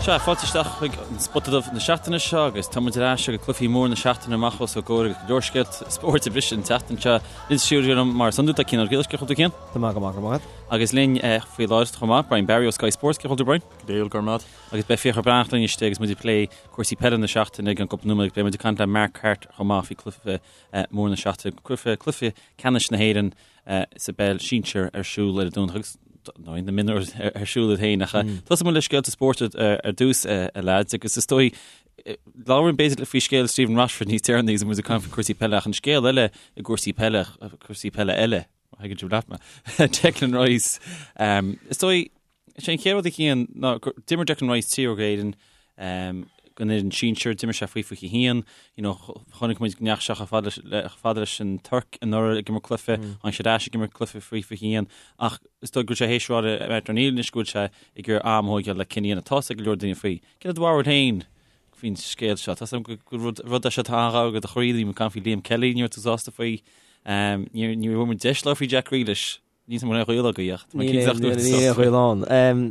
Sea, fáilte isteach chuig an Spota Dubh na seachtaine seo agus tá muid ar ais agus cluichí móra na seachtaine amach os ár gcomhair agus go leor scéalta spóirt ag briseadh an tseachtain seo. Linn sa stiúideo liom mar is iondúil tá Cian Ó Giolláin, cén chaoi a bhfuil tú Cian? Tá mé go maith, go raibh maith agat. Agus linn faoi láthair chomh maith, Brian Barry ó Sky Sports, cén chaoi a bhfuil tú Brian? Go diail, go raibh maith agat. Agus beidh Fiachra Breathnach linn istigh agus muid ag plé cúrsaí peile na seachtaine i gceann cúpla nóiméad agus beidh muid ag caint le Mark Harte chomh maith faoi cluiche mór na seachtaine, cluiche ceannais na hÉireann sa bpeil sinsir ar siúl ar an Domhnach agus nó na mionúir ar siúl iad féin ach tosóidh muid le scéalta spóirt ar dtús a leaids agus is dóigh labhraíonn b'fhéidir faoi scéal Stephen Rochford níos deireanaí agus muid ag caint faoi cúrsaí peile ach an scéal eile i gcúrsaí peile cúrsaí peile eile thuigeann sibh leat mé Declan Rice is dóigh Is é an chéad rud a Chian ná gur d'imir Declan Rice triúr d'Éirinn don fhoireann sinsir, d'imir sé faoi 21, you know, chonaic muid go ndeachaigh sé chomh fada le, chomh fada leis an Tuirc anuraidh ag imirt cluiche, tháinig sé ar ais ag imirt cluiche faoi 21, ach is dóigh go bhfuil sé théis rá le Martin O'Neill anois go bhfuil sé ag iarraidh am a thógáil le cinneadh a dhéanamh. Tá 'fhios ag go leor daoine faoi. Cén do bharúil féin faoin scéal seo? Tá 'fhios agam go gur rud, rud é seo atá an-ghar do do chroí, bhí muid ag caint faoi Liam Kelly, ní raibh tú sásta faoi. Ní, ní raibh muid deis labhairt faoi Jack Grealish. Níl aon ghaol agaibh ach tá mé cinnte nach dúirt Níl aon ghaol ann.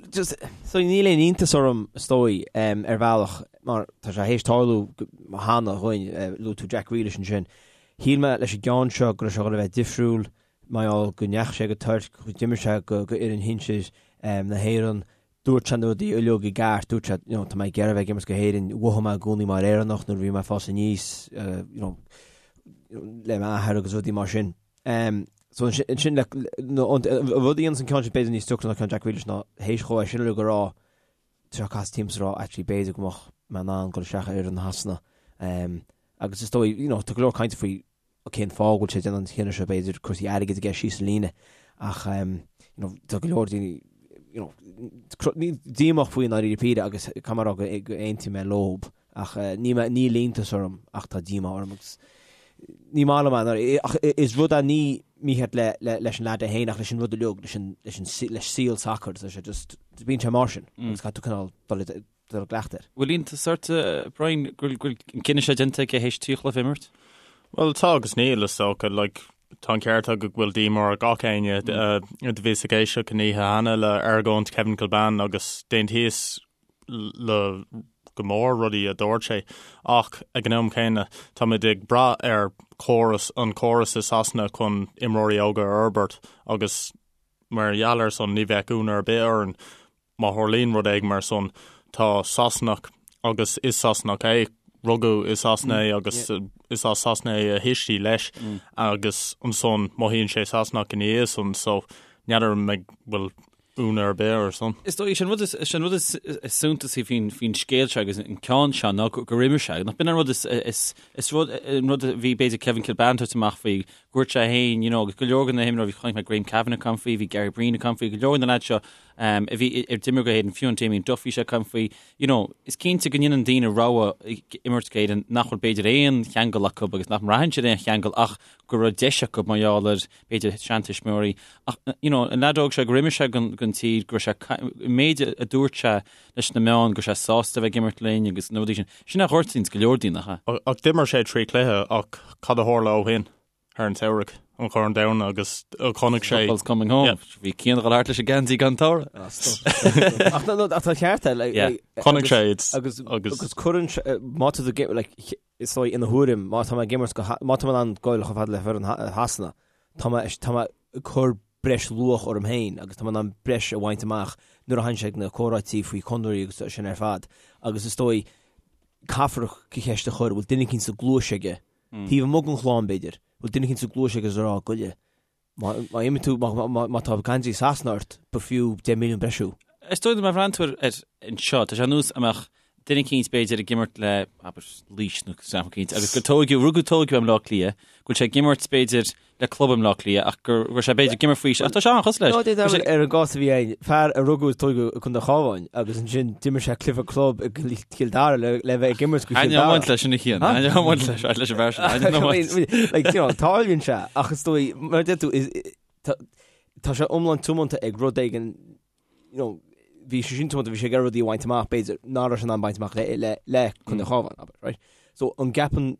Just, so níl aon iontas orm is dóigh ar bhealach mar tá sé théis tarlú cheana dhúinn, luaigh tú Jack Grealish ansin. Shíl mé leis an gceann seo go raibh sé chun a bheith difriúil mar gheall go ndeachaigh sé go Tuirc, go d'imir sé go fhoireann shinsir na hÉireann, dúirt sé na rudaí uilig i gceart, dúirt sé, you know, tá mé ag iarraidh a bheith ag imirt go hÉirinn, mhothaigh mé i gcónaí mar Éireannach nuair a bhí mé ag fás aníos, you know, le m'athair agus rudaí mar sin. So ansin le an rud a dhéanann an ceann sin b'fhéidir níos deacra ná ceann Jack Grealish ná théis dhó é sin uilig a rá tá sé casadh timpeall is a rá actually b'fhéidir go mbeadh mé in ann dul isteach ar fhoireann Shasana. Agus is dóigh you know tá go leor cainte faoi cén fáth go bhfuil sé ag déanamh an chinneadh seo b'fhéidir cúrsaí airgid aige síos an líne ach you know tá go leor daoine you know díomách faoi i ndáiríre píre agus caithfidh mé a rá go aontaím mé leob. Ach ní mé, níl iontas orm ach tá díomá orm agus ní maith liom é ach is rud é ní mícheart le leis an leaid é féin ach leis an rud uilig, leis an leis an leis saol sacair, tá sé just, bíonn sé mar sin agus caithfidh tú cineál dul i dul i gcleachtadh air. Bhfuil iontas ort, Brian, go bhfuil an cinneadh seo déanta aige théis 3 chluiche a imirt? Bhuel tá agus níl is dócha, like tá an ceart agat go bhfuil díomá ar gach éinne do bhíos ag éisteacht an oíche cheana le argóint Kevin Kilbane agus d'aontaíos le go mór rudaí a dúirt sé ach ag an am céanna táimid ag brath ar chóras an córas i Sasana chun imreoirí óga a fhorbairt agus mar gheall ar san ní bheadh ionadh ar bith orainn má tharlaíonn rud éigin mar san. Tá Sasanach agus is Sasanach é, rugadh i Sasana é agus is as Sasana é a thuistí leis agus ansan mothaíonn sé Sasanach ina dhiaidh san so n'fheadar an mbeidh bhfuil ionadh ar bith air san. Is dóigh, is é an rud is, is é an rud is, is suntasaí faoin, faoin scéal seo agus an ceann seo ná gur, gur imir sé. Nach b'in an rud is, is, is rud, an rud a bhí b'fhéidir Kevin Kilbane ag tabhairt amach faoi, go dúirt sé féin, you know, agus go leor de na himreoirí, chonaic mé Graham Kavanagh ag caint faoi, bhí Gary Breen ag caint faoi, go leor de na lads seo um, a bhí ar d'imir go hÉirinn, fiú an Damien Duff bhí sé ag caint faoi, you know, is cinnte go ndéanann daoine rogha imirt go hÉirinn nach bhfuil b'fhéidir aon cheangal acu agus nach mbraitheann siad aon cheangal ach go raibh deis acu mar gheall ar b'fhéidir seantuismitheoirí. Ach, you know, an leaid óg seo gur imir sé don, don tír, go raibh sé, an méid a dúirt sé leis na meáin, go raibh sé sásta a bheith ag imirt linn agus na rudaí sin. Sin a ghortaíonns go leor daoine, nach ea? Ach d'imir sé 3 chluiche ach cad a tharla ó shin thar an tsamhradh, an Corn Domhanda agus chonaic sé. Football's coming home. Yeah. Bhí Cian ag dul thart leis an geansaí gan togha. Ach no, no, ach tá ceart é, like, Yeah. like, Chonaic agus- sé it's- agus agus- agus cuireann sé, má tá tú ag im- like, Is dóigh, ina thuairim, má tá mé ag imirt go, má tá mé in ann goil chomh fada le foireann Shasana, tá mé, tá mé ag cur breis luach orm féin agus tá mé in ann breis a bhaint amach nuair a thagann sé ag na comhráití faoi chonraí agus sin ar fad. Agus is dóigh, caithfear an cheist a chur, bhfuil duine eicínt sa gcluais aige, taobh amuigh den chlann b'fhéidir, bhfuil duine eicínt sa gcluais aige is a rá, goile, Má imíonn tú, má tá geansaí Sasana ort, b'fhiú 10 milliún breis thú. Is dóigh liom má bhreathnaíonn tú ar anseo, tá sé ar nós a mbeadh duine eicínt b'fhéidir ag imirt le, abair, Laois nó sampla eicínt, agus gur tóigeadh, rugadh tóigeadh i mBleá Cliath, go bhfuil sé ag imirt b'fhéidir le club i mBleá Cliath ach go raibh sé b'fhéidir ag imirt faoi, ach tá sé an-chosúil leis. No, dé ar an gcás a bhí ann, fear a rugadh is tóigeadh i gContae an Chabháin agus ansin d'imir sé cluiche club i Cill Dara le le bheith ag imirt go Chill Dara. Aithneoidh leis sin a Chian, aithneoidh leis, leis an bhfear sin, aithneoidh. Like, you know, tarlaíonn sé, ach is dóigh, mar a deir tú, is- tá tá sé iomlán tiomanta ag rud éigin, you know, bhí sé sin tiomanta, bhí sé ag iarraidh rudaí a bhaint amach, b'fhéidir, nach raibh sé in ann baint amach le le le Contae an Chabháin, abair, right? So, an gceapann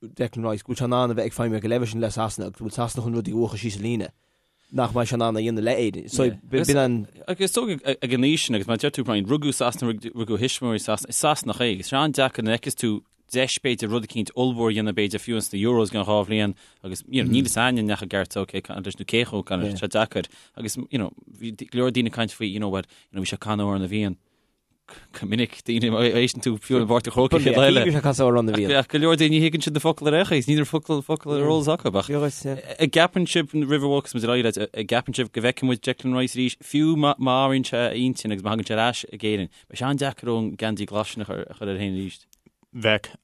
Declan Rice go bhfuil sé in ann a bheith ag feidhmiú ag an leibhéal sin le Sasana agus go bhfuil Sasana chun rudaí a bhuachan síos an líne? nach mbeidh sé in ann a dhéanamh le Éirinn. So b'in an. Agus is dóigh ag an aois sin, agus mar a deir tú Brian, rugadh i Sasana, rugadh a thuismitheoirí i Sasana, is Sasanach é, agus tá sé an-deacair nuair a fheiceas tú deis b'fhéidir rud eicínt ollmhór a dhéanamh b'fhéidir fiú ins na Euros i gceann 2 bhliain agus you know, níl fhios a'inn an ndeachaigh Gareth Southgate ag caint leis nó cé chomh gan sé deacair agus you know, bhí go leor daoine ag caint faoi you know, well, you know, bhí sé ag canadh Amhrán na bhFiann go minic daoine má éisteann tú fiú i bPáirc an Chrócaigh chéad eile. Bhí sé ag casadh Amhrán na bhFiann. Ach go leor daoine ní thuigeann siad na focail ar aon chaoi, níl focal focal ar eolas acu ach an gceapann sibh roimh a bhogfas muid ar aghaidh leat, an gceapann sibh go bhfeicfidh muid Declan Rice arís fiú má má athraíonn sé a intinn agus má thagann sé ar ais ag Éirinn. Beidh sé an-deacair an geansaí glas sin a chur air féin arís. Bheadh.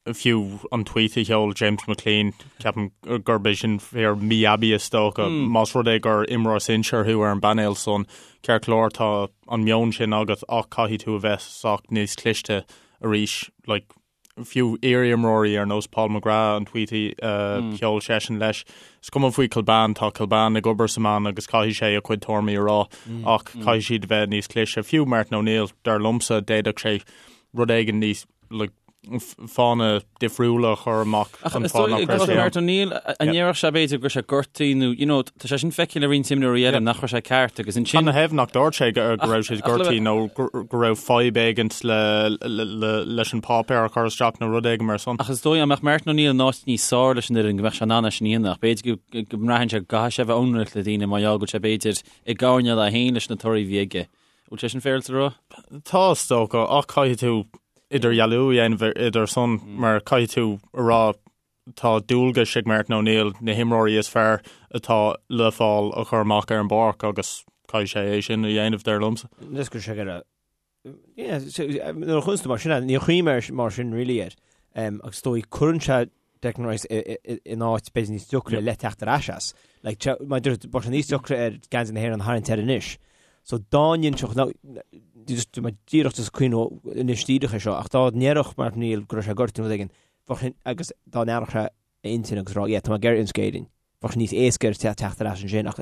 Fiú an tweet a sheol James McClean, ceapaim gurb é sin fíor mí-aibí is dócha. Más rud é gur imreoir sinsear thú ar an bpainéal san, ceart go leor tá an meon sin agat ach caithfidh tú a bheith sách níos cliste arís. Like, fiú iar-imreoirí ar nós Paul McGrath, an tweet a sheol seisean leis, is cuma faoi Kilbane, tá Kilbane ag obair sa meán agus caithfidh sé a chuid tuairimí a rá ach caithfidh siad a bheith níos cliste. Fiú Martin O'Neill, dar liomsa, d'fhéadfadh sé rud éigin níos, like, fáthanna difriúla a chur amach Ach an is fáth dóigh nach raibh sé ann. Martin O'Neill, an ndéarfadh sé b'fhéidir go raibh sé gortaithe nó, you know, tá sé sin feicthe le roinnt imreoirí eile nach raibh sé ceart agus ansin. Cad 'na thaobh nach dúirt sé go raibh sé gortaithe nó go raibh fadhb éigint leis an páipéar a chur isteach nó rud éigin mar san. Ach is dóigh dá mbeadh Martin O'Neill in áit níos fearr leis an fhoireann go mbeadh sé in ann é sin a dhéanamh ach b'fhéidir go mbraitheann sé go gcaithfidh sé a bheith ionraic le daoine mar gheall go bhfuil sé b'fhéidir i gcoirnéal é féin leis na torthaí a bhí aige. Bhfuil sé sin féaráilte a rá? Tá, is dócha, ach caithfidh tú idirdhealú a dhéanamh idir san mar caithfidh tú a rá tá dualgas ag Martin O'Neill na himreoirí is fearr atá le fáil a chur amach ar an bpáirc agus caithfidh sé é sin a dhéanamh, dar liomsa. Is go sé go raibh nuair a chuireann tú mar sin, níor chuimhnigh mé mar sin really air. Agus is dóigh cuireann sé Declan Rice in áit b'fhéidir níos deacra le teacht ar ais as. Like, mar bheadh sé níos deacra air geansaí na hÉireann a tharraingt air anois. So dá n-inseodh, just mar díreach just cuimhneamh anois díreach é seo, ach dá ndéarfadh Martin O'Neill go raibh sé gortaithe nó rud éigin, bheadh sin, agus dá n-athródh sé a intinn agus rá, yeah, tá mé ag iarraidh imirt d'Éirinn. Bheadh sé níos éasca air teacht ar ais ansin ach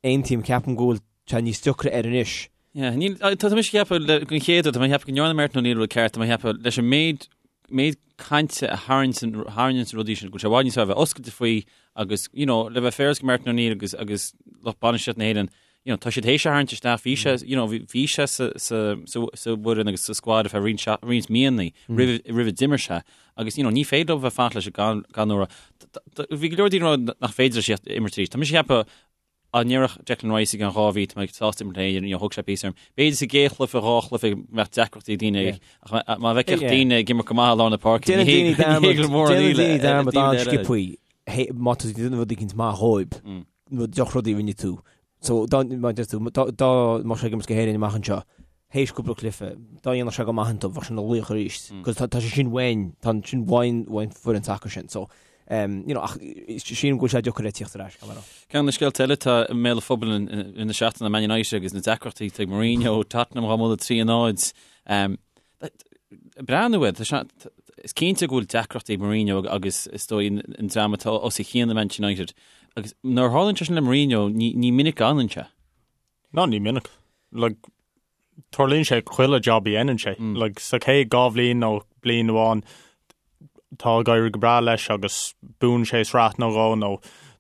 aontaím, ceapaim go bhfuil sé níos deacra air anois. Yeah, níl, tá tá mise ag ceapadh le, den chéad rud, tá mé ag ceapadh go ndearna Martin O'Neill rud ceart, tá mé ag ceapadh leis an méid, méid cainte a tharraingt, tharraingíonn na rudaí sin, go bhfuil sé i bhfad níos fearr a bheith oscailte faoi agus, you know, le bheith féaráilte go Martin O'Neill agus, agus lucht bainistíocht na hÉireann, you know, tá siad théis é a tharraingt isteach, bhí sé, you know, bhí sé sa, sa, sa, sa bhfoireann agus sa squad ar feadh roinnt, roinnt míonna roimh, roimh a d'imir sé agus, you know, ní féidir leo bheith fanacht leis gan, gan uair. Bhí go leor daoine ag rá nach féidir leis imirt arís. Tá mise ag ceapadh dá ndéarfadh Declan Rice i gceann 2 mhí, tá mé sásta imirt le hÉirinn, you know, thóg sé píosa orm. B'fhéidir sa gcéad chluiche, 2 chluiche go mbeadh deacrachtaí ag daoine ach má bhfeicfeadh daoine ag imirt go maith i lár na páirce, ní hé go mór an íle. Déanann daoine dearmad an-sciobtha má tá tú ag déanamh rud éicint maith dhóibh. nó drochrudaí a rinne tú. So, dá, mar a deir tú, dá, dá mbeadh sé ag imirt do Éirinn amach anseo, théis cúpla cluiche, dá ndéanfadh sé go maith iontu, bheadh sé ina laoch arís. Cos tá, tá sé sin uainn, tá sin uainn, uainn foireann sacair sin. So, um, you know, ach sílim go bhfuil sé deacair air tíocht ar ais, caithfidh mé a rá. Ceann de na scéalta eile atá i mbéal an phobail in, in, in na seachtaine Man United agus na deacrachtaí atá ag Mourinho, Tottenham dhá mbualadh 3-0. Um, Breathnú air, is cinnte go bhfuil deacrachtaí ag Mourinho agus is dóigh an dream atá os a chionn i Manchester United. Agus nuair a tharlaíonn sé sin le Mourinho, ní minic a fhanann sé. Ná ní minic. Like, tarlaíonn sé chuile job a dhéanann sé. Like, sa chéad 2 bhliain nó bliain amháin, tá ag éirí go breá leis agus buann sé sraith nó dhó nó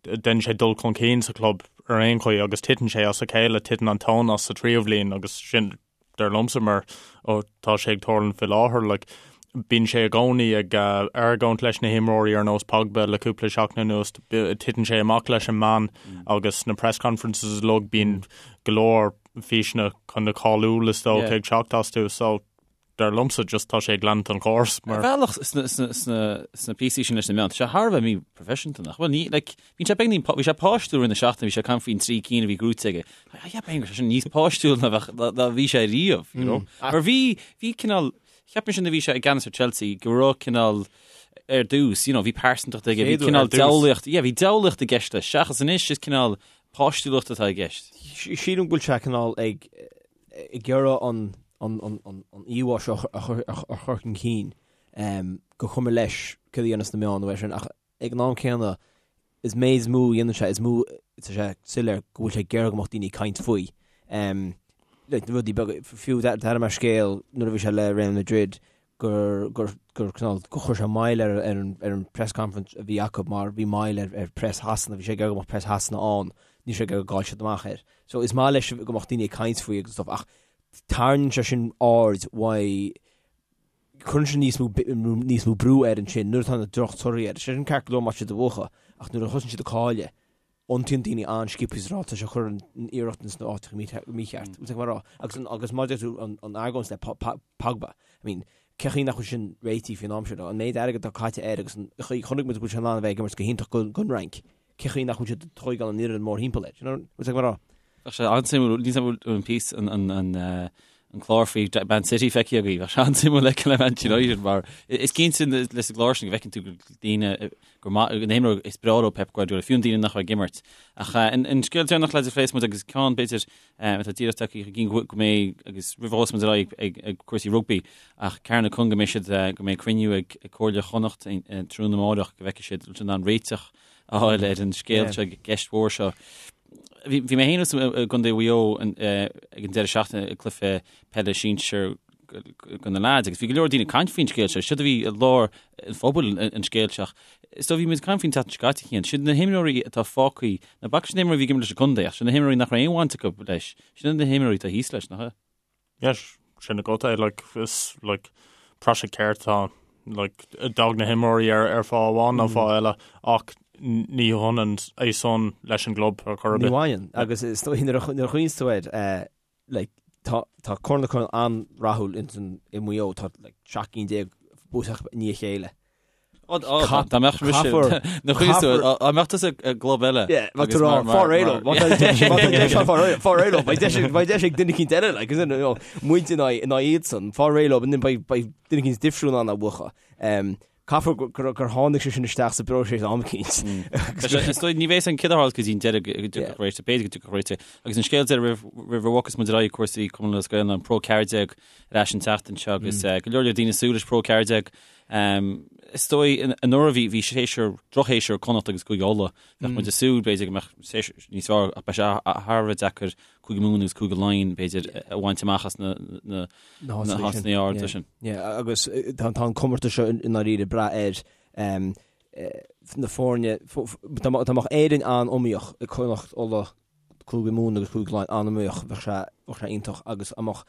déanann sé dul chun cinn sa chlub ar aon chaoi agus titeann sé as a chéile, titeann an tóin as sa tríú bhliain agus sin dar liomsa mar tá sé ag tarlúint faoi láthair like bíonn sé i gcónaí ag argóint leis na himreoirí ar nós Pogba le cúpla seachtain anuas titeann sé amach leis an meán agus na press conferences uilig bíonn go leor físeanna chun na cáiliúil is dócha ag teacht astu so dar liomsa just tá sé ag leanúint an chóras mar. Ar bhealach sna píosaí sin leis na meáin, tá sé thar a bheith míphroifisiúnta nach bhfuil? Ní, like, bíonn sé beagnín, bhí sé páistiúil roimh na seachtaine, bhí sé ag caint faoin trí cinn a bhí gnóthaithe aige. Cheap mé go raibh sé sin níos páistiúil ná bheadh, ná bhí sé riamh, you know? Mar bhí, bhí cineál, cheap mise nuair a bhí sé i gceannas ar Chelsea go raibh cineál ar dtús, you know, bhí pearsantacht aige, bhí cineál diabhlaíocht, yeah, bhí diabhlaíocht i gceist leis, seachas anois is cineál páistiúlacht atá i gceist. Sílim go bhfuil sé cineál ag ag iarraidh an an an an an íomhá seo a chur a chur chun cinn gur cuma leis cad a dhéanas na meáin nó é sin ach ag an am céanna is méid is mó a dhéanann sé is mó tá sé soiléir go bhfuil sé ag iarraidh go mbeadh daoine ag caint faoi. Like, na rudaí beaga, fiú d'airigh mé scéal nuair a bhí sé le Real Madrid. gur gur gur cineál gur chuir sé moill ar ar an ar an press conference a bhí acu mar bhí moill ar ar press Shasana, bhí sé ag iarraidh go mbeadh press Shasana ann, níl sé ag iarraidh go gcaillfeadh siad amach air. So is maith leis go mbeadh daoine ag caint faoi agus stuff ach tarraingíonn sé sin aird uaidh cuireann sé níos mó níos mó brú air ansin nuair atá na drochtorthaí air. Sé sin ceart go leor má tá siad ag buachan ach nuair a thosaíonn siad ag cailleadh iontaíonn daoine an-sciobtha is ag rá tá sé ag cur an iarracht ins na áiteacha mícheart. Bhfuil tú ag rá? Agus an agus mar a deir tú an an argóint le Pogba. I mean, cé chaoi nach bhfuil sin réitithe faoin am seo? An méid airgid atá caite air agus an chaoi chonaic muid go bhfuil sé in ann a bheith ag imirt go hiontach don Fhrainc. Cé chaoi nach bhfuil siad ag tóigeáil an fhoireann mórthimpeall air? You know, bhfuil tú ag rá? Bheadh sé an-suimiúil, níl 'fhios a'm an píosa an an an an clár faoi Man City feicthe agaibh, bheadh sé an-suimiúil le feiceáil le Man United mar is cinnte leis an gclár sin go bhfeiceann tú go daoine gur maith na himreoirí is breá leo Pep Guardiola, fiú an daoine nach raibh ag imirt. Ach an an scéal deireanach le phléifidh muid agus ceann b'fhéidir atá díreach tagtha chun cinn go mbeidh agus roimh a thosós muid ar aghaidh ag ag cúrsaí rugbaí ach Carna Con go mbeidh siad go mbeidh cruinniú ag Comhairle Chonnacht tráthnóna amárach go bhfeicfidh siad an an réiteach a fháil ar an scéal seo, ceist mhór seo. Bhí mé féin i gContae Mhaigh Eo ag an deireadh seachtaine ag cluiche peile sinsir do na leaids agus bhí go leor daoine ag caint faoin scéal seo, siad a bhí i lár an phobail an scéal seo. Is dóigh bhí muid ag caint faoin tseachtain seo caite Cian, siad na himreoirí atá fágtha, ná bac leis na himreoirí a bhí ag imirt leis an gcontae ach siad na himreoirí nach raibh aon bhaint acu leis, sin na himreoirí atá thíos leis, nach ea? Yes, sin agat é, like, is, like, praiseach ceart atá ann. Like, d'fhág na himreoirí ar, ar fáth amháin nó fáth eile, ach ní hionann é san leis an gclub ar chor ar bith. Ní bhaineann, agus is dóigh nuair a nuair a chuimhníos tú air, eh, like, tá, tá Corn na gCuradh an-rathúil ins an, i Maigh Eo, tá, like, 17 cinn buaite acu i ndiaidh a chéile. Dá mbeadh mise na dá mbeadh tusa i gclub eile. Fáil réidh leo, beidh deis ag duine eicínt eile, like, you know, muid in aghaidh in aghaidh iadsan, fáil réidh leo, beidh beidh duine eicínt difriúil in ann a bhuachan. Caithfear gur gur tháinig sé sin isteach sa bpróiseas am eicínt. Is dóigh ní bheidh an cid a go dtí an deireadh go dtiocfadh réiteach, b'fhéidir go dtiocfadh réiteach. Agus an scéal deiridh roimh a bhogfas muid ar aghaidh cúrsaí Cumann Lúthchleas Gael ná an Pro 14 ar ais an tseachtain seo agus go leor leor daoine ag súil leis Pro 14. Is dóigh anuraidh bhí bhí séasúr, drochshéasúr ag Connacht agus Cúige Uladh. Bheadh muid ag súil b'fhéidir go mbeadh séasúr níos fearr ach beidh sé thar a bheith deacair Cúige Mumhan agus Cúige Laighean b'fhéidir a bhaint amach as na na na háiteanna arda sin. Yeah, agus tá tá an comórtas seo i ndáiríre ag brath ar na foirne dá mbeadh Éirinn an-iomaíoch ag Connacht, Uladh, Cúige Mumhan agus Cúige Laighean an-iomaíoch, bheadh sé bheadh sé iontach agus dá mbeadh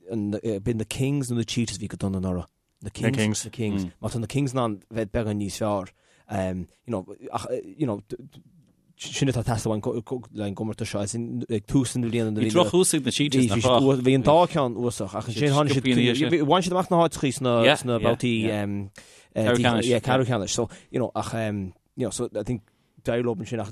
b'in na Kings nó na Cheetahs a bhí go dona anuraidh? Na Kings. Kings. Na Kings. Má tá na Kings in ann bheith beagán níos fearr, you know, ach, you know, sin atá ag teastáil uainn le an gcomórtas seo, as in, ag tús na bliana Bhí drochthús ag na Cheetahs, nach raibh? Bhí an dá cheann uafásach, ach ansin tháinig siad, bhain siad amach na háiteachaí sna babhtaí ceathrú ceannais. So, you know, ach, you know, so I think d'éirigh leo ansin ach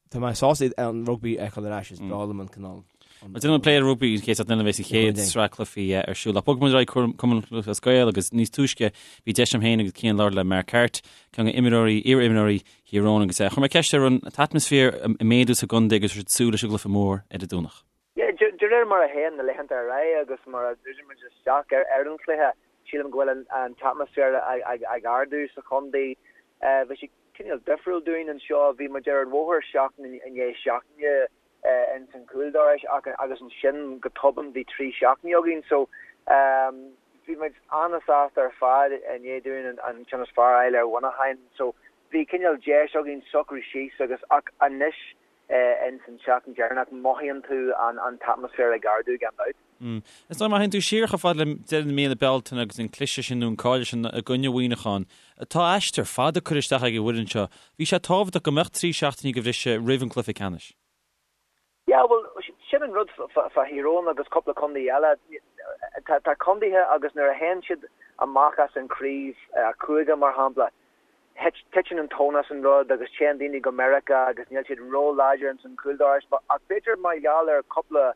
tá mé sásta an rugbaí a fheiceáil ar ais, is breá liom an cineál. Déanfaidh muid plé ar rugbaí an chéad seachtain eile a bheas an chéad sraith cluichí ar siúl. Ach bogfaidh muid ar aghaidh Cumann Lúthchleas Gael agus níos túisce bhí deis agam féin agus Cian labhairt le Mark Harte, ceann de imreoirí, iar-imreoirí Thír Eoghain agus chuir mé ceist air an t-atmaisféar ag méadú sa gcontae agus raibh siad ag súil leis an gcluiche mór ar an Domhnach. Yeah, de réir mar a théann na laethanta ar aghaidh agus mar a dhruideann muid isteach ar an chluiche, sílim go bhfuil an t-atmaisféar ag ardú sa chontae. Bhí sé cineál difriúil dúinn anseo, bhí muid ar an bhóthar seachtain i ndiaidh seachtaine ins an chúldorais ach agus ansin go tobann bhí 3 seachtainí againn. So bhí muid an-sásta ar fad i ndiaidh dúinn an ceann is fearr a fháil ar Mhuineachán. So bhí cineál deis againn socrú síos agus ach anois ins an tseachtain deireanach, mothaíonn tú an t-atmaisféar ag ardú gan dabht. Is dóigh má théann tú siar chomh fada le deireadh na míonna Bealtaine agus an cliseadh sin nó an cailleadh sin i gcoinne Mhuineacháin, tá aistear fada curtha isteach ag an bhfoireann seo. Bhí sé tábhachtach go mbeadh 3 seachtainí de bhriseadh roimh an cluiche ceannais. Yeah, bhuel, sin an rud fá Thír Eoghain agus cúpla contae eile. Tá contaetha agus nuair a théann siad amach as an chraobh cúige, mar shampla, Titeann an tóin as an rud agus téann daoine go Meiriceá agus níl siad ró-láidir ins an chúldorais ach b'fhéidir mar gheall ar cúpla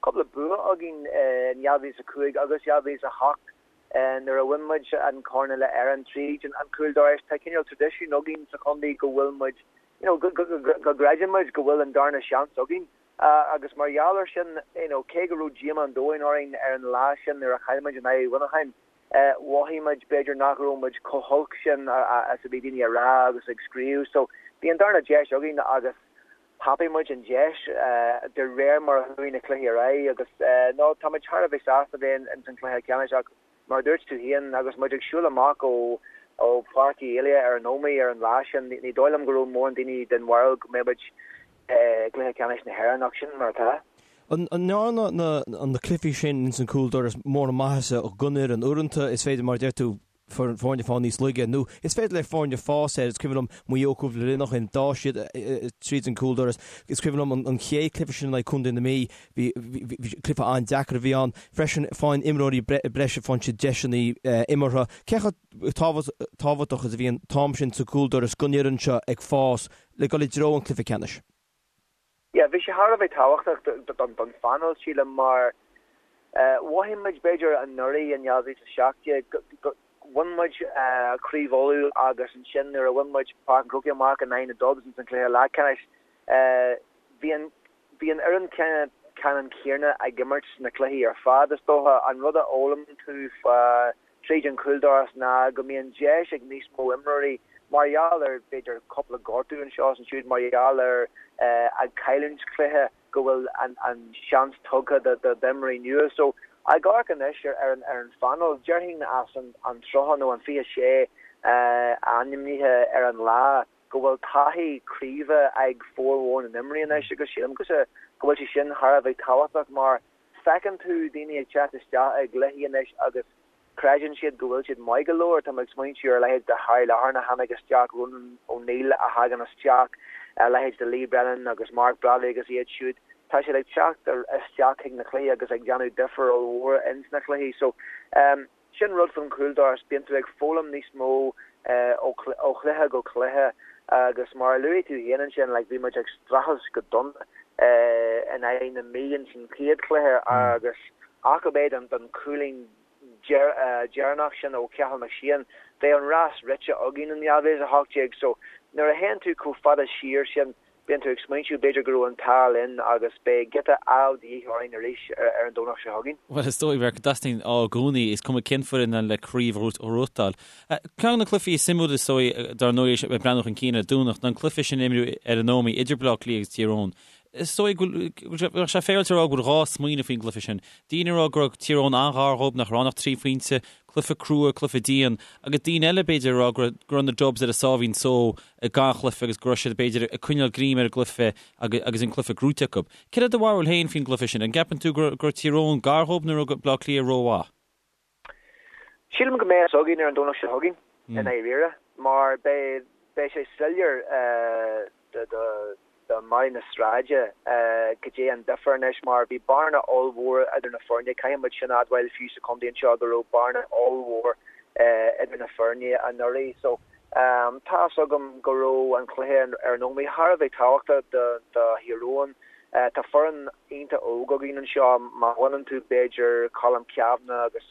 cúpla bua againn in 2005 agus 2008 nuair a bhain muid an corn uile Éireann tríd an chúldorais tá cineál traidisiún againn sa chontae go bhfuil muid you know go gcreideann muid go bhfuil an darna seans againn agus mar gheall ar sin you know cé go raibh díomá an domhain orainn ar an lá sin nuair a chaill muid in aghaidh Mhuineacháin Mhothaigh muid, b'fhéidir, nach raibh muid chomh holc sin is a bhí daoine a rá agus ag scríobh. So, bhí an darna deis againn agus thapaigh muid an deis de réir mar a chuaigh na cluichí ar aghaidh agus no, tá muid thar a bheith sásta bheith ins an cluiche ceannais ach Mar a dúirt tú féin, agus muid ag siúl amach ó ó Pháirc Uí Éalaithe ar an Ómaigh ar an lá sin, ní dóigh liom go raibh mórán daoine den bharúil go mbeadh muid i gcluiche ceannais na hÉireann, ach sin mar atá. An ndearna na cluichí sin ins an cúldoras mórán maitheasa don fhoireann? Uaireanta is féidir, mar a deir tú, foirne fáil níos laige nó is féidir le foirne fás air. Is cuimhin liom Maigh Eo cúpla bliain ó shin, d'fhás siad tríd an cúldoras. Is cuimhin liom an chéad cluiche sin in aghaidh Contae na Mí, bhí cluiche an-deacair a bhí ann. Freisin faigheann imreoirí breise, faigheann siad deiseanna imeartha. Cé chomh tábhachtach is a bhí an t-am sin sa gcúldoras don fhoireann seo ag fás le dul i dtreo an chluiche ceannais? Yeah, bhí sé thar a bheith tábhachtach don phainéal, sílim, mar mhothaigh muid, b'fhéidir, anuraidh in 2017, go bhain muid Craobh Uladh agus ansin nuair a bhain muid Páirc an Chrócaigh amach in aghaidh na Dubs ins an chluiche leathcheannais, bhí an bhí an fhoireann ceannann céanna ag imirt sna cluichí ar fad, is dócha. An rud a fhoghlaim tú fá tríd an chúldoras ná go mbíonn deis ag níos mó imreoirí, mar gheall ar, b'fhéidir, cúpla gortú anseo is ansiúd, mar gheall ar ag cailliúint cluiche, go bhfuil an seans tugtha d'imreoirí nua. So, ag amharc anois ar an phainéal, déarfainn as an 30 nó an 26 ainmnithe ar an lá, go bhfuil taithí craoibhe ag formhór na n-imreoirí anois agus sílim go bhfuil sé sin thar a bheith tábhachtach mar feiceann tú daoine ag teacht isteach i gcluichí anois agus creideann siad go bhfuil siad maith go leor. Tá mé ag smaointiú ar a leithéid de Harry Loughran a tháinig isteach, Ronan O'Neill a thagann isteach, a leithéid de Lee Brennan agus Mark Bradley agus iad siúd. Tá siad ag teacht isteach chuig na cluichí agus ag déanamh difear ollmhór ins na cluichí. So, Sin rud faoin chúldoras, bíonn tú ag foghlaim níos mó ó chluiche go cluiche agus mar a luaigh tú féin ansin, like, bhí muid ag streachailt go dona in aghaidh na Mí ins an chéad chluiche agus ach ab é don chúilín deireanach sin ó Cheathal McShane, bheadh an rás rite againn in 2018. So nuair a théann tú chomh fada siar sin, Bíonn tú ag smaointiú b'fhéidir go raibh an t-ádh linn agus beidh giota ádh de dhíth orainn arís ar an Domhnach seo chugainn. Bhuel, is dóigh, go dteastaíonn ádh i gcónaí, is cuma cén foireann le craobh a ghnóthachtáil. Ceann de na cluichí is suimiúla is dóigh, dar ndóigh, ag breathnú chun cinn ar an Domhnach, ná an cluiche sin a imríodh ar an Ómaigh idir Baile Átha Cliath agus Tír Eoghain. Is dóigh go bhfuil sé féaráilte a rá go bhfuil dhá smaoineamh faoin gcluiche sin. Daoine ag rá go raibh Tír Eoghain an-ghar dhóibh, nach raibh ann ach trí phointe, cluiche crua, cluiche dian, agus daoine eile, b'fhéidir, ag rá go raibh na Dubs ar a sáimhín só i ngach cluiche agus go raibh siad, b'fhéidir, ag coinneáil greim ar an gcluiche agus an cluiche gnóite acu. Céard é do bharúil féin faoin gcluiche sin? An gceapann tú go raibh Tír Eoghain gar dhóibh nó raibh Baile Átha Cliath rómhaith? Sílim go mbeidh a fhios againn ar an Domhnach seo chugainn, i ndáiríre, mar beidh sé soiléir do Mary na sráide goidé an difear anois mar bhí bearna ollmhór idir na foirne. Caithfidh muid sin a admháil fiú sa chontae anseo go raibh bearna ollmhór idir na foirne anuraidh. So tá fhios agam go raibh an cluiche ar an Ómaigh thar a bheith tábhachtach do Thír Eoghain. Tá foireann iontach óg againn anseo. Má bhaineann tú b'fhéidir Colm Cavanagh agus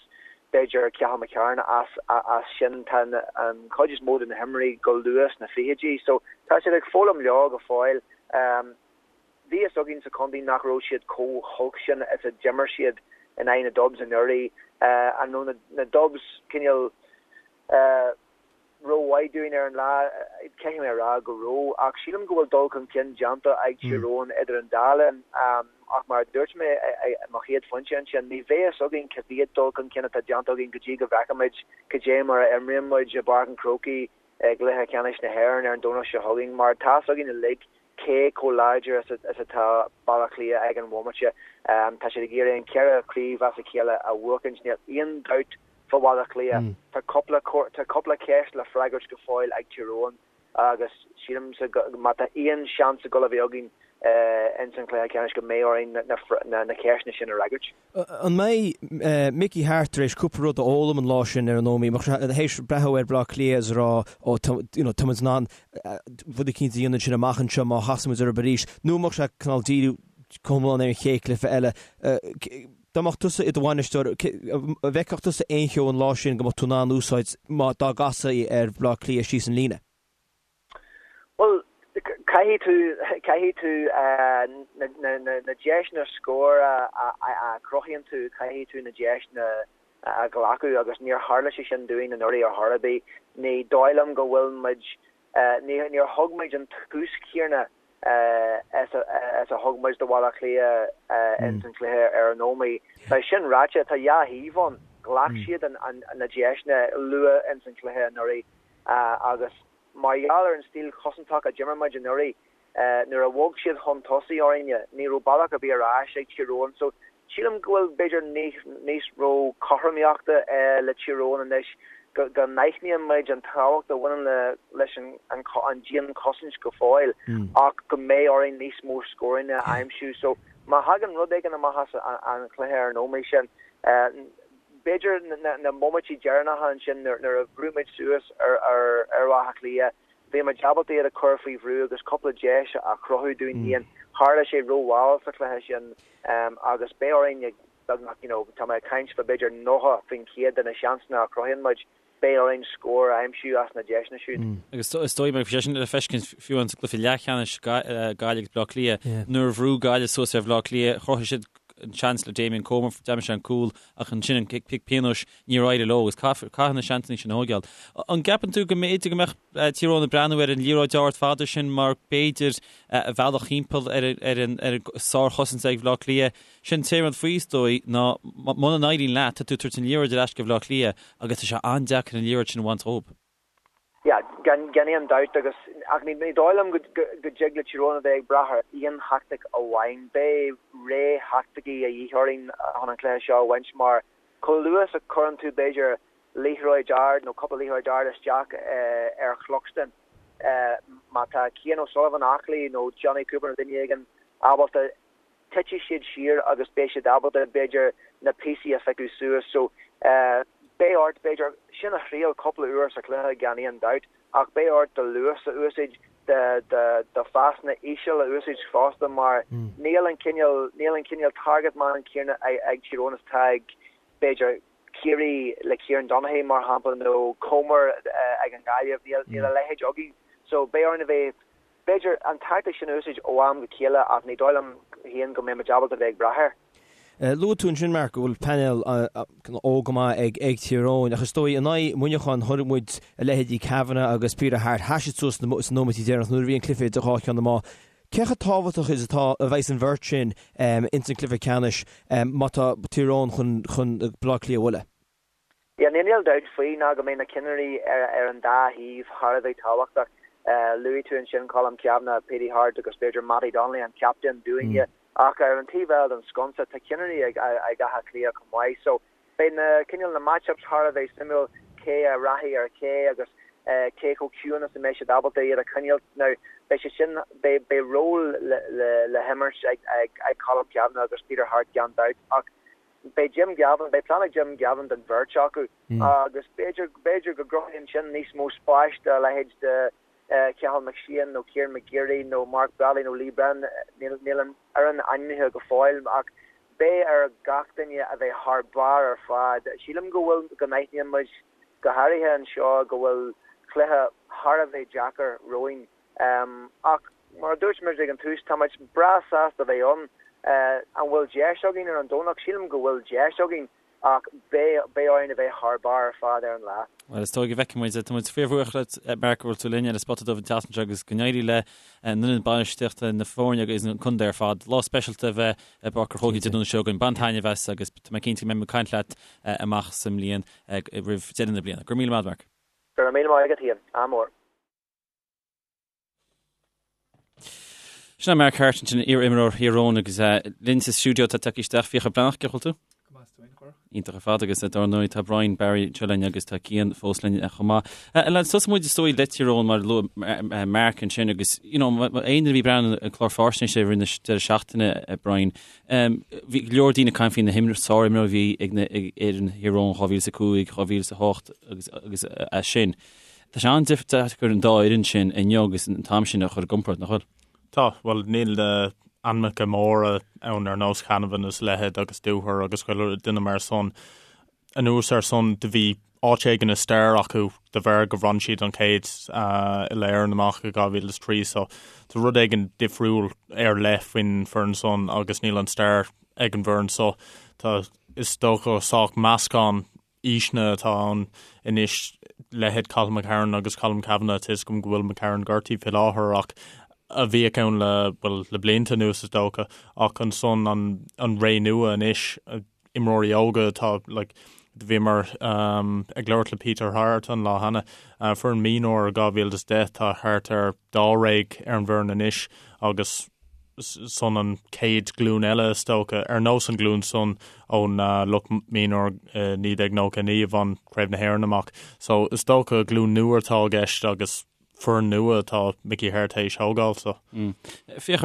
b'fhéidir Cathal McCarron as as sin tá an chuid is mó de na himreoirí go luath sna fichidí so tá siad ag foghlaim leo go fóill. Bhí fhios againn sa chontae nach raibh siad chomh holc sin is a d'imir siad in aghaidh na Dubs anuraidh. An raibh na Dubs cineál rómhaith dúinn ar an lá, caithfidh mé a rá go raibh, ach sílim go bhfuil dul chun cinn déanta ag Tír Eoghain idir an dá linn. Ach mar a dúirt mé i mo chéad phointe ansin, ní bheidh fhios againn cá mhéad dul chun cinn atá déanta againn go dtí go bhfeicfimid cad é mar a imríonn muid i bPáirc an Chrócaigh i gcluiche ceannais na hÉireann ar an Domhnach seo chugainn, mar tá fhios againn uilig cé chomh láidir is atá Baile Átha Cliath ag an bhomaite. Tá siad ag iarraidh an ceithre chraobh as a chéile a bhuachaint, níl aon dabht fá Bhaile Átha Cliath. Tá cúpla tá cúpla ceist le freagairt go fóill ag Tír Eoghain agus sílimse má tá aon seans ag dul a bheith againn ins an chluiche ceannais go mbeidh orainn na ceisteanna sin a fhreagairt. An mbeidh Mickey Harte tar éis cúpla rud a fhoghlaim an lá sin ar an Ómaigh? An mbeadh sé théis breathnú ar Bhaile Átha Cliath is a rá ó you know tá muid in ann rud eicínt a dhéanamh ansin amach anseo má chasann muid orthu arís nó an mbeadh sé cineál díriú go hiomlán ar an chéad chluiche eile? Dá mbeadh tusa i do bhainisteoir, an bhfeicfeadh tusa aon cheo an lá sin go mbeadh tú in ann úsáid má dá gcasfaí ar Bhaile Átha Cliath síos an líne? Bhuel, caithfidh tú, caithfidh tú na deiseanna scóir a chruthaíonn tú, caithfidh tú na deiseanna a ghlacadh agus níor tharla sé sin dúinn anuraidh ar chor ar bith. Ní dóigh liom go bhfuil muid, níor thug muid an tús céanna is a thug muid do Bhaile Átha Cliath ins an chluiche ar an Ómaigh. Tá sin ráite, tá dhá thaobh ann. Ghlac siad na deiseanna luath ins an chluiche anuraidh agus mar gheall ar an stíl chosantach a d'imir muid anuraidh, nuair a bhog siad chun tosaigh orainne, ní raibh bealach ar bith ar ais ag Tír Eoghain. So, sílim go bhfuil b'fhéidir níos mó cothromaíochta le Tír Eoghain anois, go n-aithníonn muid an tábhacht a bhaineann le leis an dianchosaint go fóill ach go mbeidh orainn níos mó scóranna a aimsiú. So, má thagann rud éigin amach as an chluiche ar an Ómaigh sin, b'fhéidir na móiméidí deireanacha ansin nuair a bhrú muid suas ar Áth Cliath, bhí muid ábalta iad a chur faoi bhrú agus cúpla deis a chruthú dúinn féin. Tharla sé rómhall sa chluiche sin agus beidh orainn ag beagnach, you know, tá mé ag caint fá b'fhéidir 90% de na seansanna a chruthaíonn muid, beidh orainn scór a aimsiú as na deiseanna siúd. Agus is dóigh bhí sé sin le feiscint fiú an sa gcluiche leathcheannais Gaillimh agus Bleá Cliath, nuair a bhrú Gaillimh suas ar Bhleá Cliath, chruthaigh siad an seans le Damien Comer, d'aimsigh sé an cúl ach ansin an cic pionóis níor éirigh leo agus caithfidh na seansanna sin a thógáil. An gceapann tú go mb'fhéidir go mbeadh Tír Eoghain ag breathnú ar an liathróid ard fada sin mar b'fhéidir a bhealach thimpeall ar an sárchosaint ag Bhleá Cliath? Sin an t-aon rud faoi is dóigh ná muna n-éiríonn leat tá tú ag tabhairt an liathróid ar ais go Bhleá Cliath agus tá sé an-deacair an liathróid sin a bhaint dhóibh. Yeah, gan aon dabht agus, ach ní dóigh liom go dtig le Tír Eoghain a bheith ag brath ar aon theaictic amháin. Beidh ré theaicticí a dhíth orainn chun an cluiche seo a bhaint mar chomh luath is a chuireann tú b'fhéidir liathróid ard nó cúpla liathróid ard isteach ar Chluxton, má tá Cian O'Sullivan aclaí nó Jonny Cooper nó duine éigin ábalta titfidh siad siar agus beidh siad ábalta, b'fhéidir, na píosaí a phiocadh suas. So, beidh ort, b'fhéidir, sin a thriail cúpla uair sa chluiche gan aon dabht, ach beidh ort do luas a úsáid, do phasanna íseal a úsáid fosta mar níl an cineál, níl an cineál target man céanna ag Tír Eoghain is atá ag, b'fhéidir, Ciarraí le Kieran Donaghy mar shampla nó Comer ag an nGaillimh, níl a leithéid againn. So, beidh orainn a bheith B'fhéidir, an tactic sin a úsáid ó am go chéile ach ní dóigh liom féin go mbeidh muid ábalta bheith ag brath air. Luaigh tú ansin, Mark, go bhfuil painéal óg go maith ag Tír Eoghain ach is dóigh in aghaidh Mhuineacháin chonaic muid a leithéidí Kavanagh agus Peter Harte, sheas siad suas sna nóiméidí deireanacha nuair a bhí an cluiche idir dhá cheann na meá. Cé chomh tábhachtach is atá a bheas an bheirt sin ins an cluiche ceannais má tá Tír Eoghain chun Baile Átha Cliath a bhualadh? Yeah, níl dabht faoi ná go mbeidh na cinnirí ar an dá thaobh thar a bheith tábhachtach. Luaigh tú ansin Colm Cavanagh, Petey Harte agus b'fhéidir Mattie Donnelly, an captaen dúinne, ach ar an taobh eile den sconsa tá cinnirí ag Áth Cliath chomh maith. So beidh na cineál na match-ups thar a bheith suimiúil, cé a rachaidh ar cé agus cé chomh ciúin is a mbeidh siad ábalta iad a choinneáil. Now beidh sé sin, beidh ról le himirt ag Colm Cavanagh agus Peter Harte gan dabht ach Beidh Jim Gavin, beidh plean ag Jim Gavin don bheirt acu agus b'fhéidir, b'fhéidir go gcruthaíonn sin níos mó spáis do a leithéid de Cathal McShane nó Kieran McGeary nó Mark Bradley nó Lee Brennan, níl, níl an fhoireann ainmnithe go fóill ach beidh ar gach duine a bheith thar barr ar fad. Sílim go bhfuil, go n-aithníonn muid, go háirithe anseo, go bhfuil cluiche thar a bheith deacair romhainn. Ach mar a dúirt muid ag an tús, tá muid breá sásta a bheith ann. An bhfuil deis againn ar an Domhnach? Sílim go bhfuil deis againn ach beidh beidh orainn a bheith thar barr ar fad ar an lá. Bhuel, is dóigh go bhfeicfidh muid. Tá muid fíorbhuíoch leat, Mark, go bhfuil tú linn ar an Spota Dubh an tseachtain seo agus go n-éirí le an fhoireann bainistíochta, na foirne agus an contae ar fad. Lá speisialta a bheidh i bPáirc an Chrócaigh Dé Domhnaigh seo chugainn. Bain taitneamh as agus tá mé cinnte go mbeidh muid ag caint leat amach sa mbliain, roimh deireadh na bliana. Go raibh míle maith agat, Mark. Go raibh míle maith agat féin. Ádh mór. Sin é Mark Harte ansin, iar-imreoir Thír Eoghain agus linn sa stiúideo tá tagtha isteach Fiachra Breathnach, cén chaoi a bhfuil tú? Go maith, is tú féin, a Chárthach? Iontach ar fad agus dar ndóigh tá Brian Barry anseo linn agus tá Cian fós linn chomh maith. Lads, tosóidh muid is dóigh le Tír Eoghain mar a luaigh Mark ansin agus you know, aon duine a bhí ag breathnú ar an chlár faisnéise i rith na deireadh seachtaine, Brian, bhí go leor daoine ag caint faoi na himreoirí, sárimreoirí a bhí ag na ag fhoireann Thír Eoghain 2005, 2008 agus agus as sin. Tá sé an-deacair an dá fhoireann sin inniu agus an t-am sin a chur i gcomparáid, nach bhfuil? Tá, bhuel níl na ainmneacha móra ann ar nós Canavan is a leithéid agus Dooher agus chuile duine mar san. Anuas ar san do bhí áit éigin i stair acu de bharr go bhain siad an chéad Uile-Éireann amach i 2003 so tá rud éigin difriúil ar leith faoin foireann san agus níl an stair ag an bhfoireann so tá is dócha sách meascán aoiseanna atá ann anois, leithéid Cathal McCarron agus Colm Cavanagh, tá 'fhios agam go bhfuil McCarron gortaithe faoi láthair ach a bhíodh ann le, bhuel, le blianta anuas is dócha, ach ansan an, an ré nua anois, imreoirí óga atá, like, Do bhíomar ag labhairt le Peter Harte an lá cheana. Foireann mionúr 2010 tá thart ar dáréag ar an bhfoireann anois agus san an chéad ghlúin eile is dócha, ar nós an ghlúin san ón lucht mionúr i 1999 a bhain Craobh na hÉireann amach. So is dócha glúin nua atá i gceist agus foireann nua atá Mickey Harte théis thógáil so. Féach,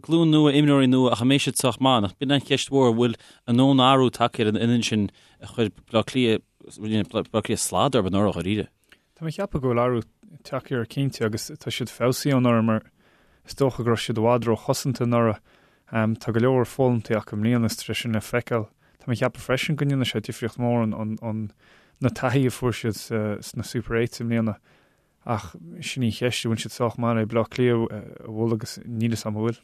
glúin nua, imreoirí nua ach an mbeidh siad sách maith? Nach b'in an cheist mhór, an bhfuil a ndóthain athrú tagtha ar an fhoireann sin a chuir Baile Átha Cliath, Baile Átha Cliath slad orthu anuraidh dháiríre? Tá mé ag ceapadh go bhfuil athrú tagtha air cinnte agus tá siad feabhsaithe ó anuraidh mar is dócha go raibh siad i bhfad róchosanta anuraidh. Tá go leor foghlamtha acu i mbliana is tá sé sin le feiceáil. Tá mé ag ceapadh freisin go ndéanfaidh sé difríocht mhór an na taithí a fuair siad sna Super Eights i mbliana. Ach sin í an cheist, an bhfuil siad sách maith le Baile Átha Cliath a bhualadh agus níl fhios agam an bhfuil.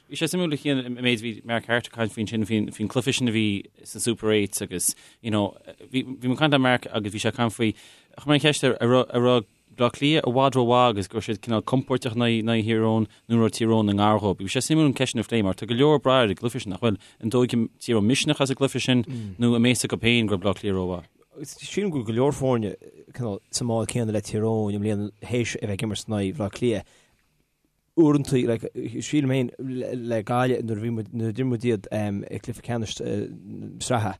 Bhí sé suimiúil a Chian an méid a bhí Mark Harte ag caint faoi ansin faoin faoin cluiche sin a bhí sa Super Eights agus you know bhí bhí mé ag caint le Mark agus bhí sé ag caint faoi chuir mé an cheist air an raibh an raibh Bleá Cliath i bhfad rómhaith agus go raibh siad cineál compóirteach in aghaidh in aghaidh Thír Eoghain nó an raibh Tír Eoghain i ngar dhóibh. Bhí sé suimiúil an ceist sin a phlé mar tá go leor ag brath ar an gcluiche sin nach bhfuil an dtógfaidh Tír Eoghain misneach as an gcluiche sin nó an mbeidh a fhios acu féin go raibh Bleá Cliath rómhaith. Sílim go bhfuil go leor foirne cineál sa mbád céanna le Tír Eoghain i mbliana théis a bheith ag imirt in aghaidh Bhaile Átha Cliath. Uaireanta, like, sílim féin le Gaillimh nuair a bhí muid, nuair a d'imir muid iad i gcluiche ceannais sraithe,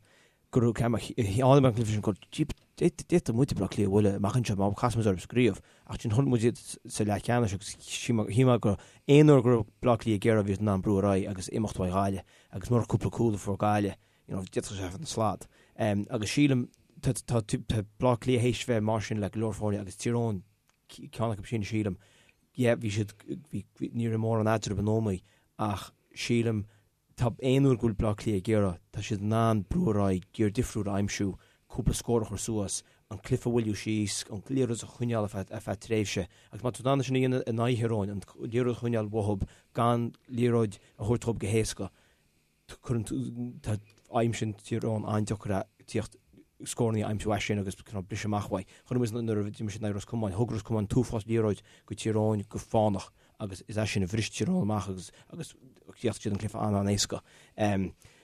go raibh ceann, tháinig an cluiche sin go d'fhéadfadh muid Baile Átha Cliath a bhualadh amach anseo má chasann muid orthu sa gcraobh. Ach ansin chonaic muid iad sa leathcheannais agus shíl mé go aon uair go raibh Baile Átha Cliath ag iarraidh bhí siad in ann brú ar aghaidh agus imeacht uaidh Ghaillimh agus murach cúpla cúl a fuair Gaillimh, you know, d'fhéadfadh sé a bheith ina slad. Agus sílim tá Baile Átha Cliath théis bheith mar sin le go leor foirne agus Tír Eoghain ceann acu sin sílim. Yeah, bhí siad, bhí, ní raibh mórán eadraibh in iomaí ach sílim tá aon uair go bhfuil Baile Átha Cliath ag iarraidh, tá siad in ann brú ar aghaidh, giar difriúil a aimsiú, cúpla scór a chur suas, an cluiche a mhoilliú síos, an liathróid a choinneáil ar feadh, ar feadh tréimhse. Agus má tá tú in ann é sin a dhéanamh in aghaidh Thír Eoghain, an liathróid a choinneáil uathub gan liathróid a thabhairt dhób go héasca, cuireann tú, tá aimsíonn Tír Eoghain an-deacair é tíocht scóranna a aimsiú as sin agus cineál briseadh amach uaidh. Chonaic muid nuair a d'imir siad in aghaidh Ros Comáin, thug Ros Comáin an t-uafás liathróid go Tír Eoghain go fánach agus is as sin a bhris Tír Eoghain amach agus agus chríochnaigh siad an cluiche an-an-éasca.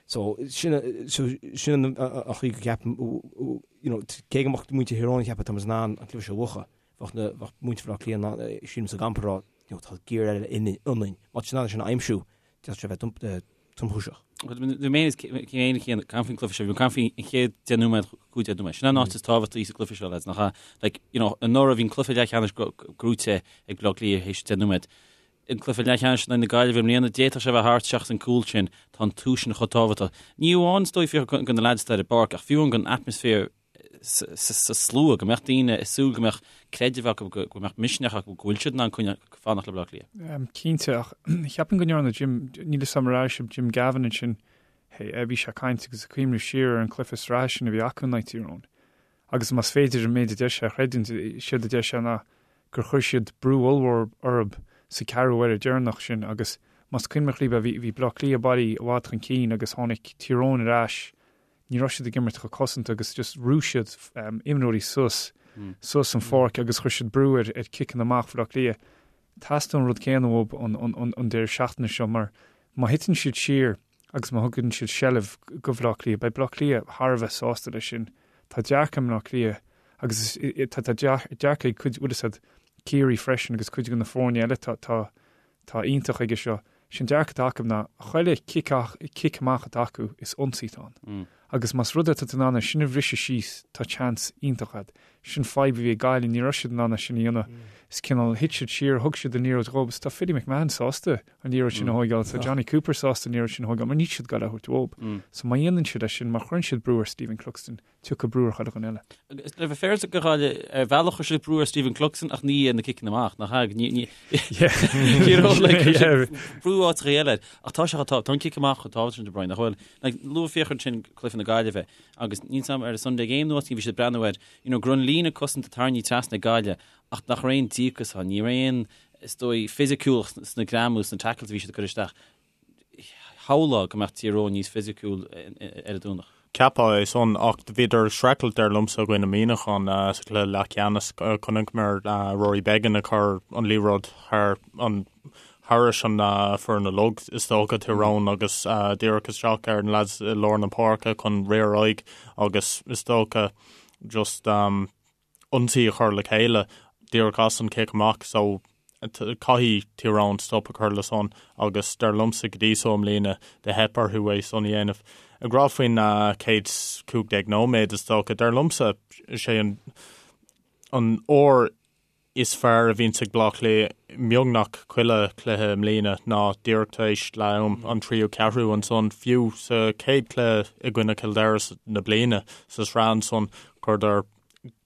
So sin so sin an chaoi go gceapaim you know cé go mbeadh muintir Thír Eoghain ag ceapadh tá muid in ann an cluiche seo a bhuachan, bheadh na bheadh muintir Bhaile Átha Cliath in ann sílim sa gcampa ag rá you know tá giar eile ionainn. Má tá siad in ann é sin a aimsiú, D'fhéadfadh sé a bheith tromchúiseach. Bhí mé féin ag caint faoin gcluiche seo, bhí mé ag caint faoin chéad 10 nóiméad, 15 nóiméad. Sin an áit is tábhachtaí sa gcluiche seo, lads, nach ea? Like, you know, anuraidh bhí an cluiche leathcheannais gnóite ag Baile Átha Cliath théis 10 nóiméad. An cluiche leathcheannais in aghaidh na Gaillimhe i mbliana, d'fhéadfadh sé a bheith thart seachas an cúl sin. Tá an tús sin chomh tábhachtach. Ní amháin is dóigh fiú do na lads atá ar an bpáirc, ach fiú amháin don atmaisféar sa slua, go mbeadh daoine ag súil, go mbeadh creideamh acu, go mbeadh misneach acu go bhfuil siad in ann coinneáil, fanacht le Baile Átha Cliath. Cinnte, ach cheapfainn go ndearna Jim, níl 'fhios a'm ar airigh sibh Jim Gavin ansin, bhí sé ag caint agus ag cuimhneamh siar ar an cluiche sraithe sin a bhí acu in aghaidh Tír Eoghain. Agus más féidir an méid a deir sé a chreidiúint, séard a deir sé ná gur chuir siad brú ollmhór orthu sa ceathrú uaire deireanach sin agus más cuimhin libh bhí bhí Baile Átha Cliath bailithe i bhfad chun cinn agus tháinig Tír Eoghain ar ais ní raibh siad ag imirt chomh cosanta agus just bhrú siad imreoirí suas suas an pháirc agus chuir siad brú ar ar ciceanna amach Bhaile Átha Cliath. Teastaíonn an rud céanna uathu an an an deireadh seachtaine seo mar má thiteann siad siar agus má thugann siad seilbh go Bhaile Átha Cliath, beidh Baile Átha Cliath thar a bheith sásta leis sin. Tá dearcadh i mBaile Átha Cliath agus tá tá dearcadh ag cuid bhfuil 'fhios a'd Ciarraí freisin agus cuid de na foirne eile tá tá Tá iontach aige seo. Sé'n dearcadh atá acu ná, chuile chic amach atá acu, is ionsaí atá ann. Agus más rud é tá tú in ann é sin a bhriseadh síos, tá chance iontach a'd. Sin fadhb a bhí ag Gaillimh, ní raibh siad in ann é sin a dhéanamh. Is cineál, thit siad siar, thug siad an liathróid dhób, is tá Philly McMahon sásta an liathróid sin a thóigeáil, tá Jonny Cooper sásta an liathróid sin a thóigeáil, mar níl siad ag goil á thabhairt uathub. So má dhéanann siad é sin, má chuireann siad brú ar Stephen Cluxton, tiocfaidh brú ar chuile dhuine eile. Agus le bheith féaráilte do Ghaillimh, ar bhealach chuir siad brú ar Stephen Cluxton ach ní ar na ciceanna amach, nach ea? Ní, ní, you know, like, chuir siad brú áiteacha eile air. Ach tá sé chomh tá, tá an cic amach chomh tábhachtach sin de Brian, nach bhfuil? Like, luaigh Fiachra ansin cluiche na Gaillimhe agus níl 'fhios a'm ar an Sunday Game nó áit bhí siad ag breathnú air, you know, go raibh an líne cosanta tarraingthe trasna ag Gaillimh ach nach raibh aon díocas ann, ní raibh aon, is dóigh, fisiciúlacht sna greamú, sna tackles a bhí siad ag cur isteach. Shamhlófá go mbeadh Tír Eoghain níos fisiciúil ar an Domhnach. Cheapfá é san, ach bhíodar ag streachailt dar liomsa i gcoinne Muineachán sa chluiche leathcheannais. Chonaiceamar Rory Beggan ag cur an liathróid thar an Thairis an foireann uilig, is dócha, Tír Eoghain agus díreach isteach ar na lads i lár na páirce chun rith ar aghaidh agus is dócha just ionsaí a chur le chéile díreach as an cic amach so caithfidh Tír Eoghain stop a chur le san agus dar liomsa go dtí so i mbliana do theip orthu é san a dhéanamh. Ag rá faoin chéad 15 nóiméad is dócha, dar liomsa is é an an uair is fearr a bhíonns ag Bleá Cliath beagnach chuile chluiche i mbliana ná díreach tar éis leath am, an tríú ceathrú ansan, fiú sa chéad chluiche i gcoinne Chill Dara na bliana sa sraith ansan, chuireadar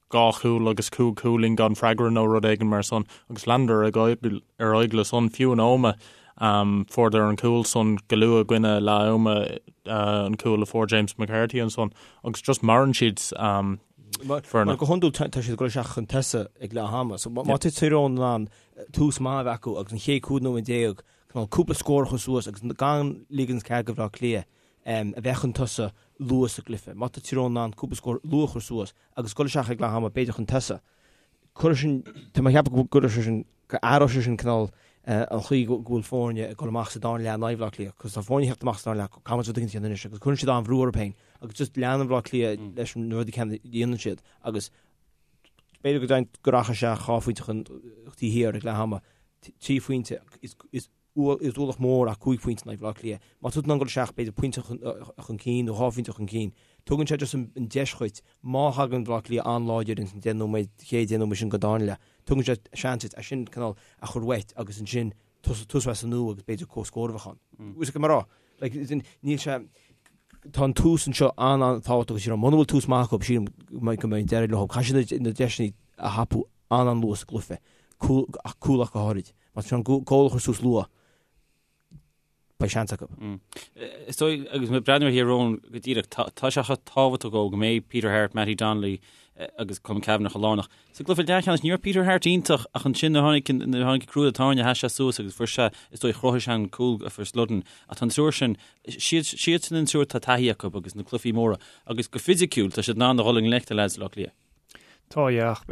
dhá chúl agus cúig chúilín gan freagra nó rud éigin mar san agus leanadar ar aghaidh le san fiú in Ómaigh. Fuaireadar an cúl san go luath i gcoinne leath ama, an cúl a fuair James McCarthy ansan agus just maireann siad. Mar go hiondúil tá siad ag dul isteach chun tosaigh ag leath ama. So má tá Tír Eoghain in ann tús maith a bheith acu agus an chéad 15 nóiméad cineál cúpla scór a chur suas agus gan ligean cead do Bhaile Átha Cliath a bheith chun tosaigh luath sa gcluiche. Má tá Tír Eoghain in ann cúpla scór luath a chur suas agus dul isteach ag leath ama b'fhéidir chun tosaigh, cuirfidh sin, tá mé ag ceapadh go gcuirfidh sé sin, go athróidh sé sin cineál an chaoi go bhfuil foirne ag dul amach sa dara leath in aghaidh Bhaile Átha Cliath, cos tá foirne ag teacht amach sa dara leath, caithfidh muid rud éigin a dhéanamh anois agus cuireann siad an-bhrú orthu féin agus just leanann Baile Átha Cliath leis na rudaí céanna a dhéanann siad agus b'fhéidir go deimhin go rachaidh sé dhá phointe chun taobh thiar ag leath ama, trí phointe is is is ualach mór ach cúig phointe in aghaidh Bhaile Átha Cliath. Má tá tú in ann dul isteach b'fhéidir pointe chun cinn nó dhá phointe chun cinn, tugann sé just an deis dhuit, má thagann Baile Átha Cliath an-láidir ins an deich nóiméad, chéad deich nóiméad sin den dara leath, tugann sé seans duit é sin cineál a chur uait agus ansin tosú as an nua agus b'fhéidir comhscór a bheith ann. Bhfuil fhios agat mar rá? Like, níl sé, tá an tús anseo an-an-tábhachtach agus muna bhfuil tús maith acu, sílim go mbeidh deireadh leo. Caithfidh siad na deiseanna a thapú an-an-luath sa gcluiche, ach cúl ach go háirid. Má tá an cúl a chur suas luath, beidh seans acu. Is dóigh, agus mé ag breathnú ar Thír Eoghain go díreach, tá sé chomh tábhachtach go mbeidh Peter Harte, Mattie Donnelly agus Colm Cavanagh chomh lárnach. Sa gcluiche leathcheannais, ní raibh Peter Harte iontach ach ansin nuair a tháinig nuair a tháinig crú tairne sheas sé suas agus fuair sé, is dóigh, chruthaigh sé an cúl a fuair Sludden. Ach tá an triúr sin, siad siadsan an triúr tá taithí acu agus na cluichí móra agus go fisiciúil tá siad in ann a dhul i ngleic le leaids Bhaile Átha Cliath. Tá, yeah, ach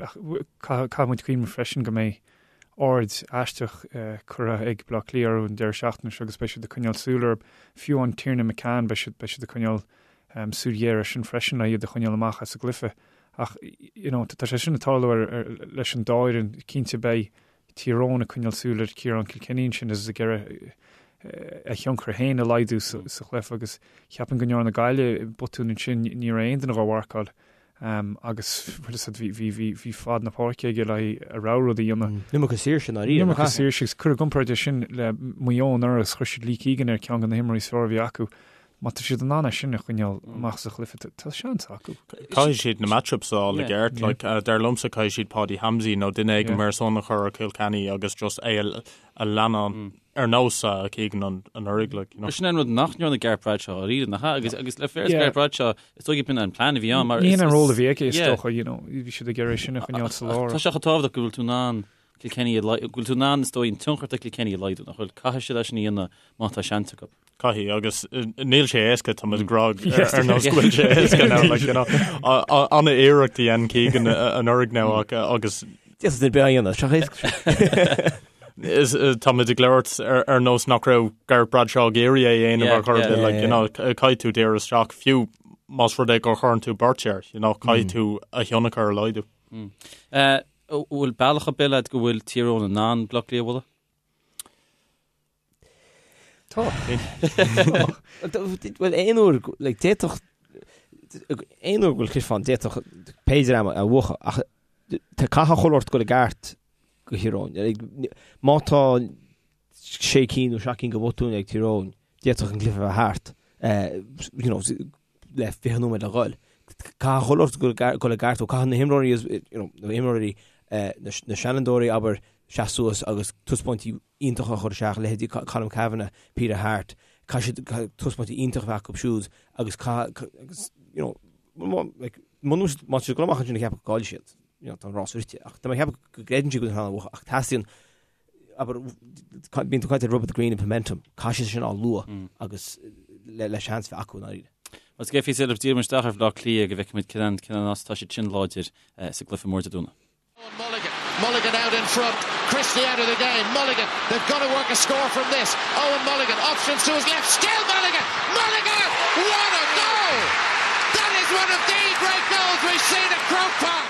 caithfidh muid cuimhneamh freisin go mbeidh aird aisteach curtha ag Baile Átha Cliath orthu an deireadh seachtaine seo agus beidh siad ag coinneáil súil orthu. Fiú an Tiernan McCann, beidh siad, beidh siad ag coinneáil súil ghéar air sin freisin le iad a choinneáil amach as an gcluiche. Ach, you know, tá sé sin ag tarlú ar, ar, leis an dá fhoireann. Cinnte beidh Tír Eoghain ag coinneáil súil ar Ciarán Kilkenny ansin agus ag iarraidh a thionchar féin a laghdú sa chluiche agus cheapfainn go ndearna Gaillimh botún ansin, ní raibh aon duine dhá mharcáil agus bhfuil fhios agat bhí bhí bhí fad na páirce aige le a rogha rud a dhéanamh. An iomarca saoirse i ndáiríre. An iomarca saoirse agus cuir i gcomparáid é sin le Maigh Eo anuraidh agus chuir siad Lee Keegan ar ceann de na himreoirí is fearr a bhí acu. Má tá siad in ann é sin a choinneáil amach sa chluiche, tá seans acu. Caithfidh siad na matchups a fháil i gceart. Like, dar liomsa caithfidh siad Paddy Hamsey nó duine éigin mar san a chur ar Kilkenny agus just é a leanán ar nós Keegan anuraidh. Like, you know. Sin an rud nach ndearna Gareth Bradshaw dáiríre, nach ea? Agus, agus le féar Gareth Bradshaw, is dóigh b'in an plean a bhí ann. Ní hin an ról a bhí aige, is dócha, you know, bhí siad ag iarraidh sin a choinneáil sa lár. Tá sé chomh tábhachtach go bhfuil tú in ann Kilkenny a go bhfuil tú in ann, is dóigh, an tionchar atá Kilkenny a laghdú, nach bhfuil? Caithfidh siad é sin a dhéanamh má tá seans acu. Caithfidh, agus níl sé éasca, tá muid ag rá ar nós go bhfuil sé éasca now, like, you know, an-iarracht a dhein Keegan anuraidh now agus D'fhéadfadh duine ar bith é a dhéanamh, seo éasca sin. Tá muid ag labhairt ar nós nach raibh Gareth Bradshaw ag iarraidh é a dhéanamh ar chor ar bith, like, you know, caithfidh tú díriú isteach, fiú más rud é gur chuireann tú beirt air, you know, caithfidh tú a thionchar a laghdú. Bhfuil bealach ar bith leat go bhfuil Tír Eoghain in ann Bleá Cliath a bhualadh? Tá. Bhuel, aon uair, like, d'fhéadfadh, aon uair go bhfuil cluiche ann, d'fhéadfadh pé dream a bhuachan, ach tá caithfidh chuile shórt dul i gceart do Thír Eoghain. Like, má tá sé cinn nó seacht gcinn de bhotúin ag Tír Eoghain, d'fhéadfadh an cluiche a bheith thart, you know, le 20 nóiméad le dhul. Caithfidh chuile shórt dul i gceart, ó caithfidh na himreoirí, you know, na himreoirí, na seanfhondúirí, abair, seasamh suas agus taispeáintí iontacha a chur isteach, leithéidí Colm Cavanagh, Peter Harte, caithfidh siad taispeáintí iontacha a bheith acu siúd agus caithfidh, agus, you know, like, muna bhfuil siad, má tá siad ag dul amach ansin ag ceapadh go gcaillfidh siad, you know, tá an rás rite. Ach tá mé ag ceapadh go gcreideann siad go bhfuil siad in ann a bhuachan, ach teastaíonn, abair, bíonn tú ag caint ar rub of the green and momentum, caithfidh siad sin a fháil luath agus le, le seans bheith acu i ndáiríre. Más gé fís eile, díreoidh muid isteach ar Bhleá Cliath go bhfeicfimid cén cén nós atá siad sin láidir sa gcluiche mór Dé Domhnaigh. Mulligan. Mulligan out in front. Christie out of the game. Mulligan, they've got to work a score from this. Owen Mulligan, options to his left. Still Mulligan! Mulligan! What a goal! That is one of the great goals we've seen at Croke Park!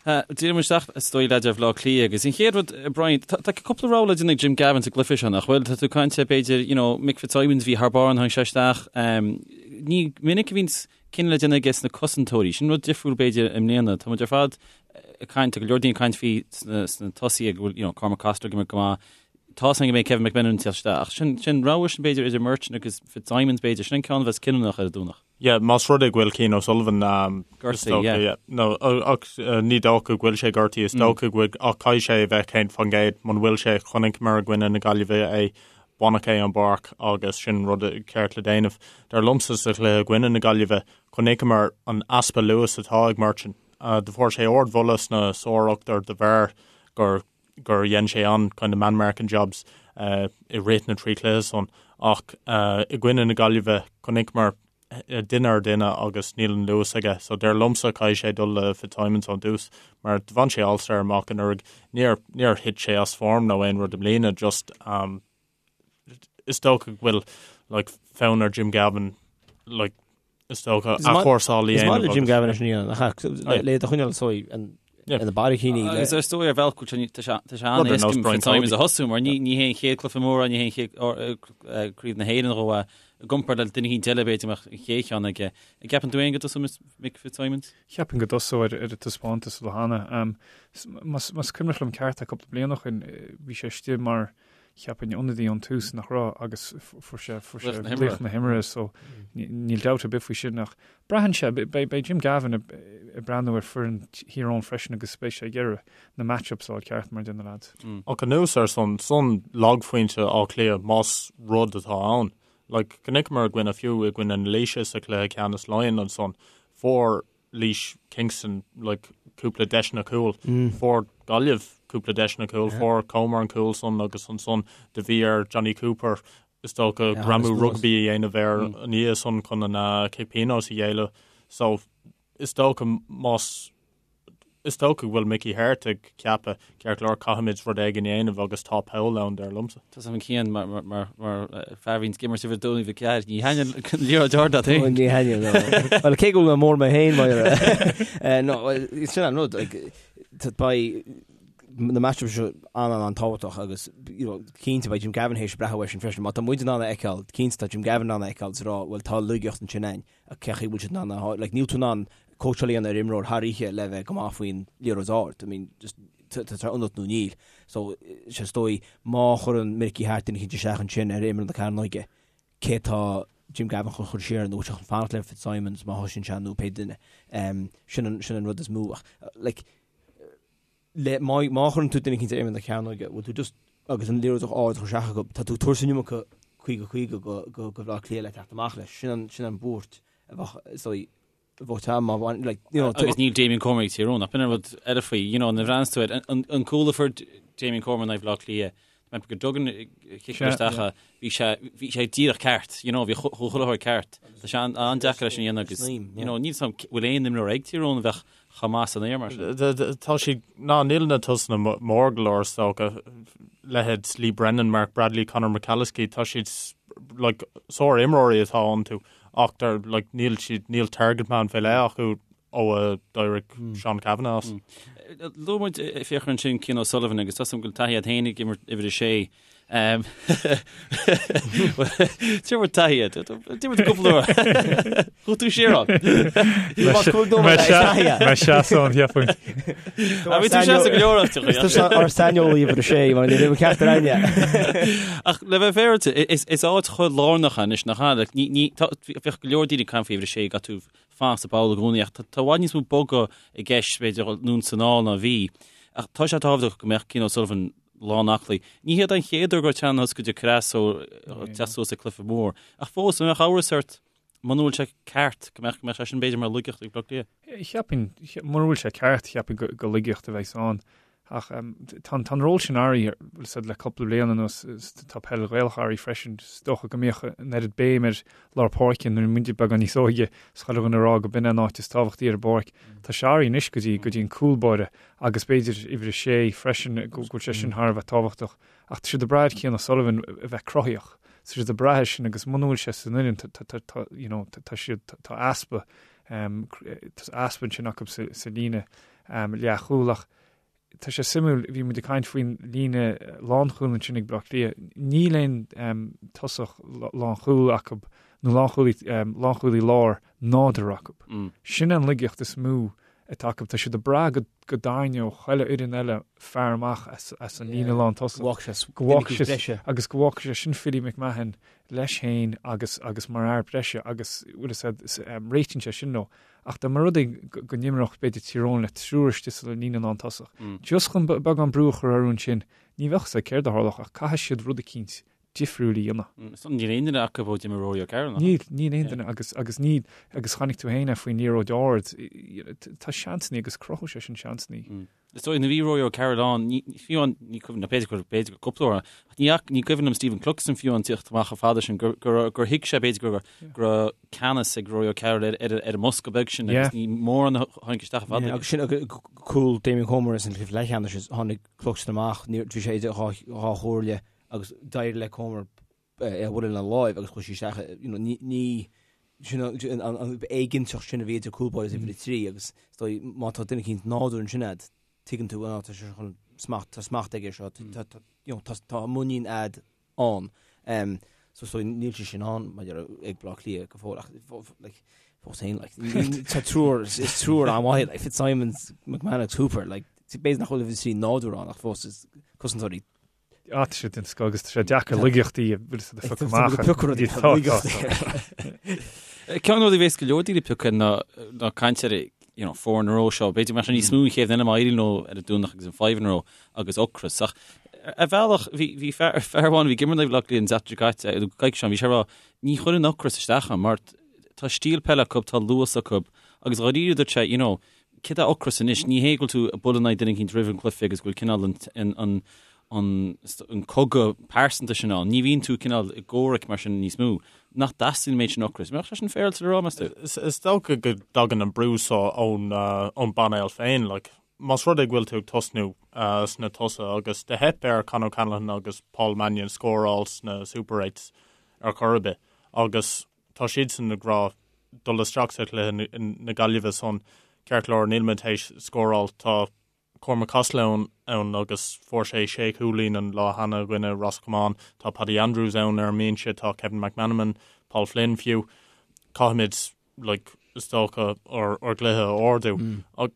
Díreoidh muid isteach is dóigh leat ar Bhaile Átha Cliath agus an chéad rud, Brian, tá cúpla rogha le déanamh ag Jim Gavin sa gcluiche seo, nach bhfuil? Tá tú ag caint b'fhéidir, you know, Mick Fitzsimons bhí thar barr nuair a tháinig sé isteach. Ní minic a bhíonn cinneadh le déanamh aige sna cosantóirí. Sin rud difriúil b'fhéidir i mbliana. Tá muid ar fad ag caint, tá go leor daoine ag caint faoi sna tosaithe go bhfuil, you know, Cormac Costello ag imirt go maith. Tá a fhios againn go mbeidh Kevin McMenamin ag teacht isteach. Ach sin, sin rogha sin b'fhéidir idir Murchan agus Fitzsimons b'fhéidir. Sin an ceann a bheas cinniúnach ar an Domhnach. Yeah, más rud é go bhfuil Cian O'Sullivan gortaithe, yeah. yeah. No, ach ní dócha go bhfuil sé gortaithe, is dócha go bhfuil ach caithfidh sé a bheith 100% muna bhfuil sé chonaiceamar i gcoinne na Gaillimhe é baineadh é ón bpáirc agus sin rud ceart le déanamh. Dar liomsa sa chluiche i gcoinne na Gaillimhe, chonaiceamar an easpa luas atá ag Murchan. Do fuair sé ardmholadh sna sár-ochtar de bharr gur gur dhein sé an kind of man marking jobs i rith na dtrí chluiche san ach i gcoinne na Gaillimhe chonaiceamar duine ar duine agus níl an luas aige so dar liomsa caithfidh sé dul le Fitzsimons ón dtús mar do bhain sé All-Star amach anuraidh níor níor thit sé as form nó aon rud i mbliana just um, is dócha go bhfuil like, fonn ar Jim Gavin like, is dócha athchúrsáil a Is maith le Jim Gavin é sin a dhéanamh le do choinneáil so ina barraicíní. Agus is dóigh ar bhealach go tá sé an-éasca Fitzsimons a thosú mar ní hé an chéad cluiche mór ní hé an chéad craobh na hÉireann dhó i gcomparáid le duine éicint eile b'fhéidir mbeadh an chéad cheann aige. An gceapann tú féin go dtosóidh Mick Fitzsimons? Cheapfainn go dtosóidh ar a taispeántas ó cheana. Más cuimhneach liom ceart tá cúpla bliain ó shin bhí sé istigh mar cheapfainn ionadaí ón tús nach raibh agus fuair sé fuair sé laoch na himeartha so níl dabht ar bith faoi sin ach braitheann sé beidh Jim Gavin ag breathnú ar foireann Thír Eoghain freisin agus beidh sé ag iarraidh na match-ups a fháil ceart mar a deir na lads. Ach anuas ar san, san lagphointe Átha Cliath más rud atá ann. Like chonaiceamar i gcoinne fiú i gcoinne na Laoise sa chluiche ceannais Laighean ansan fuair Laois Kingston like cúpla deiseanna cúil. Fuair Gaillimh cúpla deiseanna cúil, fuair Comer an cúl san agus ansan do bhí ar Jonny Cooper is dócha greamú rugbaí a dhéanamh air an oíche san chun an cic pionóis a ghéilleadh. So is dócha más Is dócha go bhfuil Mickey Harte ag ceapadh, ceart go leor, caithfimid rud éigin a dhéanamh agus tá poll ann, dar liomsa. Tá a fhios agam Cian mar fear a bhíonn ag imirt uimhir 2 uimhir 4, ní thaitníonn an liathróid ard leat féin. Ní thaitníonn, no. Bhuel, cé go bhfuil mé mór mé féin, mar no, sin an rud, like, beidh na matchups seo an-an-an-tábhachtach agus you know, cinnte beidh Jim Gavin théis breathnú air sin freisin. Má tá muid in ann a fheiceáil, cinnte tá Jim Gavin in ann a fheiceáil is a rá, bhuel tá laigeacht ansin ann. Ach cé chaoi bhfuil siad in ann a like níl tú in ann cóitseáil a dhéanamh ar imreoir thar oíche le bheith go maith faoin liathróid ard. I mean just tá sé ionat nó níl. So sé is dóigh má chuireann Mickey Harte duine eicínt isteach ansin ar imeall na cearnóige, cé tá Jim Gavin chun chur siar nó chun fanacht le Fitzsimons má thosaíonn sé nó pé duine. Um, sin an, sin an rud is mó. Ach like le, má, má chuireann tú duine eicínt ar imeall na cearnóige, bhfuil tú just, agus an liathróid ard a chur isteach acu, tá tú ag tabhairt an iomarca 50 50 go, go, go Bhaile Átha Cliath le teacht amach leis. Sin an, sin an buairt a bheadh, is dóigh, a bheadh te má bhain, like, you know, Agus níl Damien Comer ag Tír Eoghain, ach b'in an rud eile faoi, you know, nuair a bhreathnaíonn tú air, an, an cúl a fuair Damien Comer in aghaidh Bhaile Átha Cliath, mé go dtugann cic isteach é, bhí sé, bhí sé díreach ceart, you know, bhí chuile shórt ceart. Tá sé an-deacair leis an dhéanamh agus, you know, níl 's a'm bhfuil aon imreoir ag Tír Eoghain a bheadh chomh maith san aer mar sin. Tá siad, ná níl na tosaithe mór go leor is dócha, leithéid Lee Brennan, Mark Bradley, Conor McAliskey, tá siad like sár-imreoirí atá iontu ach they're like níl siad, níl target man fé leith acu ó a d'éirigh Seán Cavanagh as. Luaigh muid Fiachra ansin Cian O'Sullivan agus tá 's agam go bhfuil taithí agat féin ag imirt uimhir a sé. D'imir taithí agat. D'imir tú cúpla uair. Chuaigh tú siar ann. Mé seasamh an cheapfainn. Bhí tú seasamh go leor áiteacha. Is tusa ár saineolaí uimhir a sé mar ní raibh ceart ar aine. Ach le bheith féaráilte, is áit chomh lárnach anois nach ea? Bheadh go leor daoine ag caint faoi uimhir a sé, caithfidh tú fanacht sa bpoll i gcónaí ach tá i bhfad níos mó bogadh i gceist b'fhéidir anonn is anall ná a bhí. Ach tá sé tábhachtach go mbeadh Cian O'Sullivan lán aclaí. Ní hiad an chéad uair go raibh teannán go dtí creas ó teacht suas ag cluiche mór. Ach fós, an mbeadh amhras ort muna bhfuil sé ceart go mbeadh go mbeadh sé sin b'fhéidir mar laigeacht ag Bleá Cliath? Cheapfainn, mura bhfuil sé ceart, cheapfainn go laigeacht a bheas ann. Ach tá an ról sin athraithe, bhfuil fhios a'd, le cúpla bliain anuas, tá peil Ghaelach athraithe freisin. Is dócha go mbíodh an oiread béim ar lár páirce nuair a bhí muide beagán níos óige, is chuile dhuine ag rá go b'in é an áit is tábhachtaí ar an bpáirc. Tá sé athraithe anois go dtí go dtí an cúl báire agus b'fhéidir uimhir a sé freisin, go bhfuil sé sin thar a bheith tábhachtach. Ach tá siad ag brath ar Cian O'Sullivan a bheith cruthaíoch. Tá siad ag brath air sin agus muna bhfuil sé san fhoireann, tá, you know, tá siad, tá easpa, tá easpa ansin acu sa líne. leathchúil ach tá sé suimiúil, bhí muid ag caint faoin líne lánchúil ansin ag Baile Átha Cliath, níl aon tosach lánchúil acu nó lánchúlaí lánchúlaí láir nádúrtha acu. Sin an laigeacht is mó atá acu, tá siad ag brath go go dtarraingeodh chuile fhoireann eile fear amach as an líne lántosach. Go bhfágfaidh sé agus go bhfágfaidh sé sin Philly McMahon leis féin agus agus mar fhear breise agus bhfuil fhios a'd réitíonn sé sin leo. Ach dá mba rud é go n-imreodh b'fhéidir Tír Eoghain le triúr istigh sa líne lántosach, just chun beagán brú a chur orthu ansin, ní bheadh fhios a'd céard a tharlódh ach caithfidh siad rud eicínt difriúil a dhéanamh. Níl aon duine acu ó d'imir Rory O'Carroll, nach Níl, níl aon duine agus agus níl agus chonaic tú féin é faoin liathróid ard, tá seansannaí agus cruthóidh sé sin seansannaí. Is dóigh, nuair a bhí Rory O'Carroll ann, ní, fiú amháin, ní cuimhin liom, b'fhéidir gur, b'fhéidir gur cúpla uair, ach ní, ní cuimhin liom Stephen Cluxton fiú amháin tíocht amach chomh fada sin, gur, gur, gur thuig sé b'fhéidir gur, go raibh ceannas ag Rory O'Carroll ar, ar, ar an mbosca beag sin agus ní mórán a tháinig isteach chomh fada. Agus sin, cúl Damien Comer san chluiche leathcheannais, tháinig Cluxton amach, ní, bhí sé idir dhá, dhá chomhairle agus d'éirigh le Comer é a bhualadh lena láimh agus chuaigh sí isteach, you know, ní, ní, sin an, an, an éiginnteacht sin a bhí idir cúl báire is uimhir a 3 agus is dóigh má tá duine eicínt nádúrtha ansin a'd, tuigeann tú, tá sé chun smacht, tá smacht aige seo, tá, tá, you know, tá, tá muinín a'd ann. Um, so is dóigh níl sé sin ann maidir ag Baile Átha Cliath go fóill ach like, fós féin, like, tá triúr, is triúr an-mhaith, like, Fitzsimons, McMahon agus Hooper, like, b'fhéidir nach bhfuil uimhir a 3 nádúrtha ann ach fós is cosantóirí Tá sé den scoth agus tá sé deacair laigeachtaí a bhfuil siad a phiocadh amach. Ceann de na rudaí a bhéas go leor daoine ag piocadh ná ná caint ar you know, four in a row seo. B'fhéidir go mbeadh sé níos mó an chéad duine má éiríonn leo ar an Domhnach agus an five in a row agus ocras. Ach ar bhealach bhí bhí fear fear amháin a bhí ag imirt le Baile Átha Cliath an tseachtain seo caite, coicís ó shin, bhí sé ag rá ní chuireann ocras isteach orm mar tá stíl peile acu, tá luas acu agus dháiríre dúirt sé, you know, Céard é ocras anois? Ní hé go bhfuil tú ag bualadh in aghaidh duine eicínt roimh an gcluiche agus go bhfuil cineál an, an, an cogadh pearsanta sin ann. Ní bhíonn tú cineál i gcomhrac mar sin níos mó. Nach dteastaíonn an méid sin ocrais? Mbeadh sé sin féaráilte le rá, meas tú? Is dócha go dtagann an brú seo ón, ón bpainéal féin. Like, más rud é go bhfuil tú ag tosnú sna tosaithe agus do theip ar Con O'Callaghan agus Paul Mannion scóráil sna Super Eights ar chor ar bith agus tá siadsan ag rá dul isteach sa chluiche na Gaillimhe san, ceart go leor, níl muid théis scóráil, tá Cormac Costello ann agus fuair sé sé chúilín an lá cheana i gcoinne Ros Comáin, tá Paddy Andrews ann ar an mbinse, tá Kevin McManamon, Paul Flynn fiú. Caithfimid like, is dócha ár gcluiche a ardú. Ach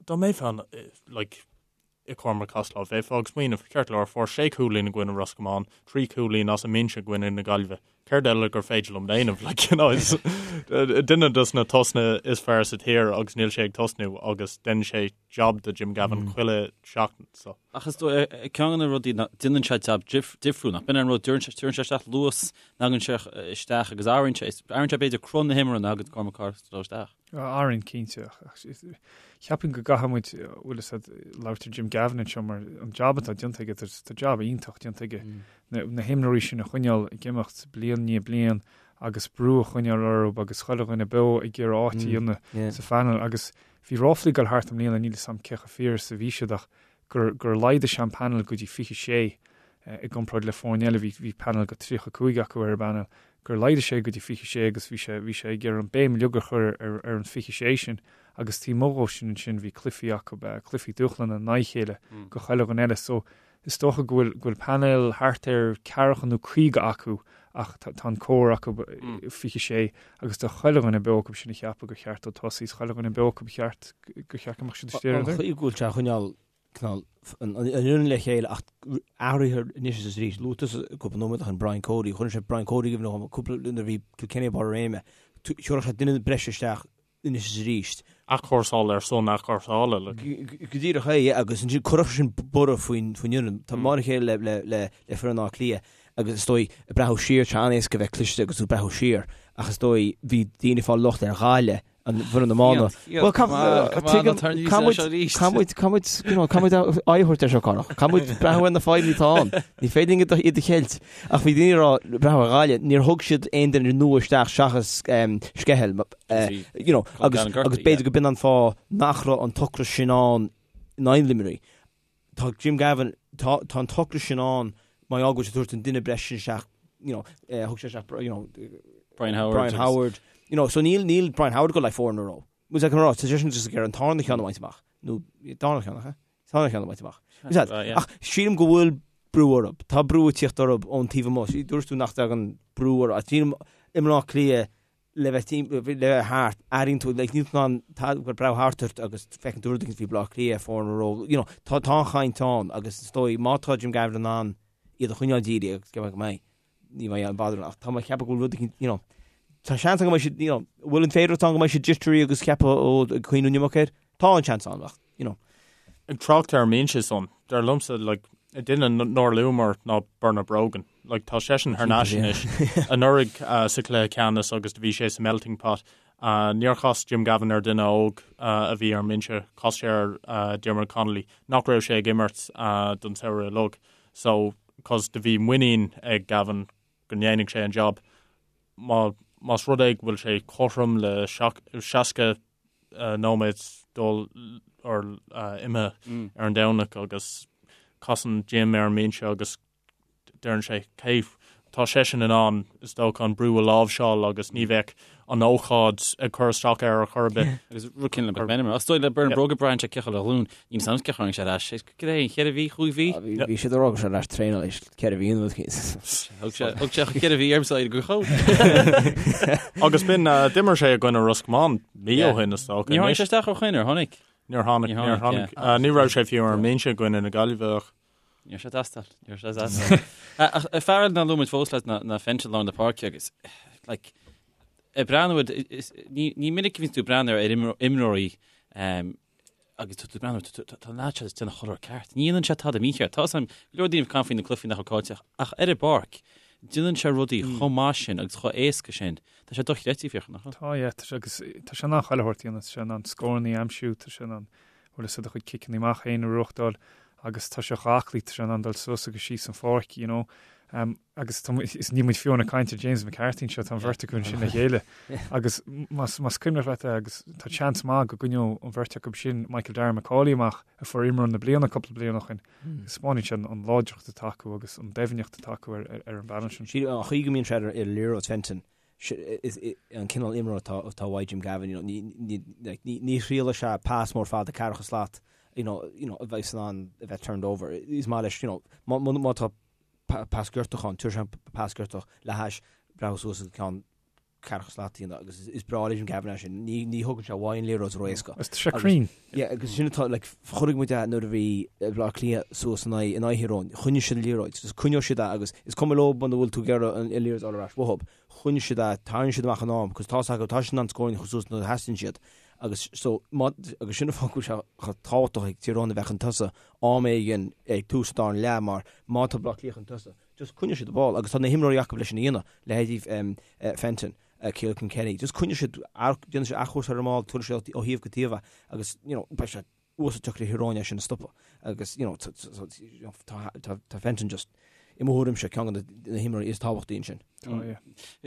dá mbeifeá like, i Cormac Costello. Bheifeá ag smaoineamh, ceart go leor, fuair sé chúilín i gcoinne Ros Comáin, 3 chúilín as an mbinse i gcoinne na Gaillimhe. Céard eile gur féidir liom déanamh? Like, you know, is duine dos na tosnaithe is fearr sa tír agus níl sé ag tosnú agus déanann sé jab do Jim Gavin chuile sheachtain. So. Ach is dóigh, ceann de na rudaí ná déanann sé jab difriúil, nach b'in an rud, tugann sé isteach luas, thagann sé isteach agus athraíonn sé, athraíonn sé b'fhéidir cruth na himeartha nuair a thagann Cormac Costello isteach. Athraíonn, cinnte. Cheapfainn go gcaithfidh muid, bhfuil fhios a'd, labhairt ar Jim Gavin anseo mar an jab atá déanta aige, tá jab iontach déanta aige. Na himreoirí sin a choinneáil ag imeacht bliain i ndiaidh bliain agus brú a choinneáil orthu agus chuile dhuine beo ag iarraidh áit a dhéanamh sa phainéal. Agus bhí ráflaí ag dul thart i mbliana, níl fhios a'm cé chomh fíor is a bhí siad ach gur gur laghdaigh sé an painéal go dtí 26 i gcomparáid le foirne eile, bhí bhí painéal go 35 acu ar an bpainéal, gur laghdaigh sé go dtí 26 agus bhí sé bhí sé ag iarraidh an béim uilig a chur ar ar an 26 sin agus taobh amuigh dhó sin ansin bhí cluichí acu, cluichí dúshláin in aghaidh a chéile go chuile dhuine eile so is dócha go bhfuil go bhfuil painéal thart ar ceathracha nó 50 acu ach tá tá an core acu 26 agus tá chuile dhuine beo acu sin a cheapadh gur cheart dó tosaí is chuile dhuine beo acu ba cheart gur cheart go mbeadh siad istigh ar an chaoi go bhfuil sé a choinneáil cineál an fhoireann le chéile ach athruithe anois is arís. Luaigh tusa cúpla nóiméad ó shin Brian Cody, chuireann sé Brian Cody i gcuimhne dhom cúpla nuair a bhí Kilkenny ag barr a réime. Chuirfeadh sé duine breise isteach anois is arís. Athchúrsáil ar son athchúrsála. Go díreach é, yeah, agus ansin chuirfeadh sin borradh faoin fhoireann. Tá mar a chéile le le le foireann Átha Cliath agus is dóigh ag breathnú siar, tá sé an-éasca bheith cliste agus tú ag breathnú siar ach is dóigh bhí daoine ag fáil locht ar Ghaillimh. an bhfoireann iomána. Bhuel, caithfidh muid, you know, caithfidh muid aghaidh a thabhairt air seo, Conach. Caithfidh muid breathnú ar na fadhbanna atá ann. Ní féidir linn iad a cheilt. Ach bhí daoine ag rá, breathnú ar Ghaillimh, níor thug siad aon duine nua isteach seachas Skehill, you know, agus b'fhéidir go b'in an fáth nach raibh an t-ocras sin ann in aghaidh Luimnigh. Tá Jim Gavin, tá tá an t-ocras sin ann mar gheall go bhfuil sé ag tabhairt an duine breise sin isteach, you know, eh, thug sé isteach, you know, Brian Howard. Brian Howard, you know, so níl níl Brian Howard ag dul le foireann a raibh. Muid ag rá, tá seisean just ag iarraidh an tarna ceann a bhaint amach, nó darna ceann, ach, eh? Tarna ceann a baint amach. Ach sílim go bhfuil brú orthu. Tá brú ag tíocht orthu ón taobh amuigh. Dúirt tú nach dtagann brú orthu. Ach sílim i mBleá Cliath le bheith le bheith thart, airíonn tú, like, níl tú in ann tá gur breathnú thart ort agus feiceann tú rud éicint faoi Bleá Cliath, foireann a raibh, you know, tá tá an chaint ann agus is dóigh má tá Jim Gavin in ann iad a choinneáil dírithe agus go mbeidh, ní bheidh aon bother ach tá mé ag ceapadh go bhfuil rud éicint, you know, tá seans ann go mbeidh siad, you know, bhfuil an féidearthacht ann go mbeidh siad jittery agus ceapadh ó ag cuimhneamh an iomarca air? Tá an seans ann ach, you know. Ag trácht ar an mbinse san, dar liomsa, like, duine nár luamar ná Bernard Brogan. Like, tá seisean thar n-ais anois. Anuraidh sa chluiche ceannais agus do bhí sé sa melting pot. Níor chas Jim Gavin ar duine óg a bhí ar an mbinse, chas sé ar Diarmuid Connolly, nach raibh sé ag imirt don samhradh uilig. So, cos do bhí muinín ag Gavin go ndéanfadh sé an job. Má, más rud é go bhfuil sé cothrom le 60 nóiméad dul or imithe ar an Domhnach agus casann Jim ar an mbinse agus deireann sé cé tá seisean in ann is dócha an brú a láimhseáil agus ní bheadh an ócáid ag cur isteach air ar chor ar bith. Agus rud céanna le McMenamin. Is dóigh le Bernard Brogan braitheann sé cé chomh le ghlúin. Níl a fhios agam cé tháinig sé ar ais. Cad é, cheithre mhí, chúig mhí? Bhí siad ag rá go raibh sé ar ais traenáil leis ceithre mhí nó Thug sé thug sé cheithre mhí ormsa go chomh. Agus b'in d'imir sé i gcoinne Ros Comáin mí ó shin is dócha. Níor tháinig sé isteach ó shoin ar tháinig? Níor tháinig, níor tháinig. Ní raibh sé fiú ar an mbinse i gcoinne na Gaillimhe ach. Níor sé teastáil, níor sé teastáil. Ach fear eile nár luaigh muid fós leis ná Fenton lár na páirce agus like, ag breathnú ní ní minic a bhíonn tú ag breathnú ar imreoirí agus tú ag breathnú tá an leaid seo ag déanamh chuile rud ceart. Ní dhéanann sé tada mícheart. Tá a fhios agam go leor daoine ag caint faoi na cluichí nach raibh caillte ach ar an bpáirc déanann sé rudaí chomh maith sin agus chomh éasca sin. Tá sé dochreidte Fiachra, nach bhfuil? Tá, yeah, tá sé agus tá sé in ann chuile shórt a dhéanamh, tá sé in ann scóranna a aimsiú, tá sé in ann bhfuil a fhios agat a chuid ciceanna amach féin a reáchtáil agus tá sé chomh aclaí, tá sé in ann dul suas agus síos an pháirc, you know. Um, agus tá, is níl muid fiú ag caint ar James McCarthy anseo, tá an bheirt acu ansin le chéile. Agus más, más cuimhneach leat é, agus tá seans maith go gcoinneodh an bheirt acu sin Michael Darragh Macauley amach a fuair imreoir na bliana cúpla bliain ó shin. Taispeánann sé an láidreacht atá acu agus an doimhneacht atá acu ar, ar, ar an bpainéal sin. Sí, an chaoi go mbíonn sé ar, ar liathróid Fenton, is an cineál imreoir atá atá uaidh Jim Gavin, you know, ní ní like ní ní thriailfidh sé pas mór fada ceathracha slat, you know, you know, a bheidh in ann a bheith turned over. Is maith leis, you know, má má má tá pas giortach ann, tabharfaidh sé an pas giortach le hais breathnú suas agus ceann ceathracha slat a dhéanamh agus is breá le Jim Gavin é sin. Ní ní thugann sé uaidh an liathróid ró-éasca. Agus tá sé cruinn. Yeah, agus sin atá, like, chonaic muid é nuair a bhí Bleá Cliath suas in aghaidh in aghaidh Thír Eoghain. Choinnigh siad an liathróid. Just coinneoidh siad é agus is cuma leo muna bhfuil tú ag iarraidh an liathróid a fháil ar ais uathub. Choinnigh siad é, tarraing siad amach in am, cos tá's acu, tá siad in ann scóranna a chur suas nuair a theastaíonn siad. Agus so, má, agus sin an fáth go bhfuil sé chomh tábhachtach ag Tír Eoghain a bheith chun tosaigh am éigin ag tús an dara leath mar má tá Bleá Cliath chun tosaigh, just coinneoidh siad an ball agus tá na himreoirí acu leis sin a dhéanamh, leithéidí Fenton. Kealan Kilkenny. Just coinneoidh siad, déanfaidh siad athchúrsáil ar an mball, tabharfaidh siad ó thaobh go taobh é agus, you know, beidh sé uasal deacair do Thír Eoghain é sin a stopadh agus, you know, tá Fenton just, i mo thuairimse, ceann de na himreoirí is tábhachtaí ansin. Tá, yeah.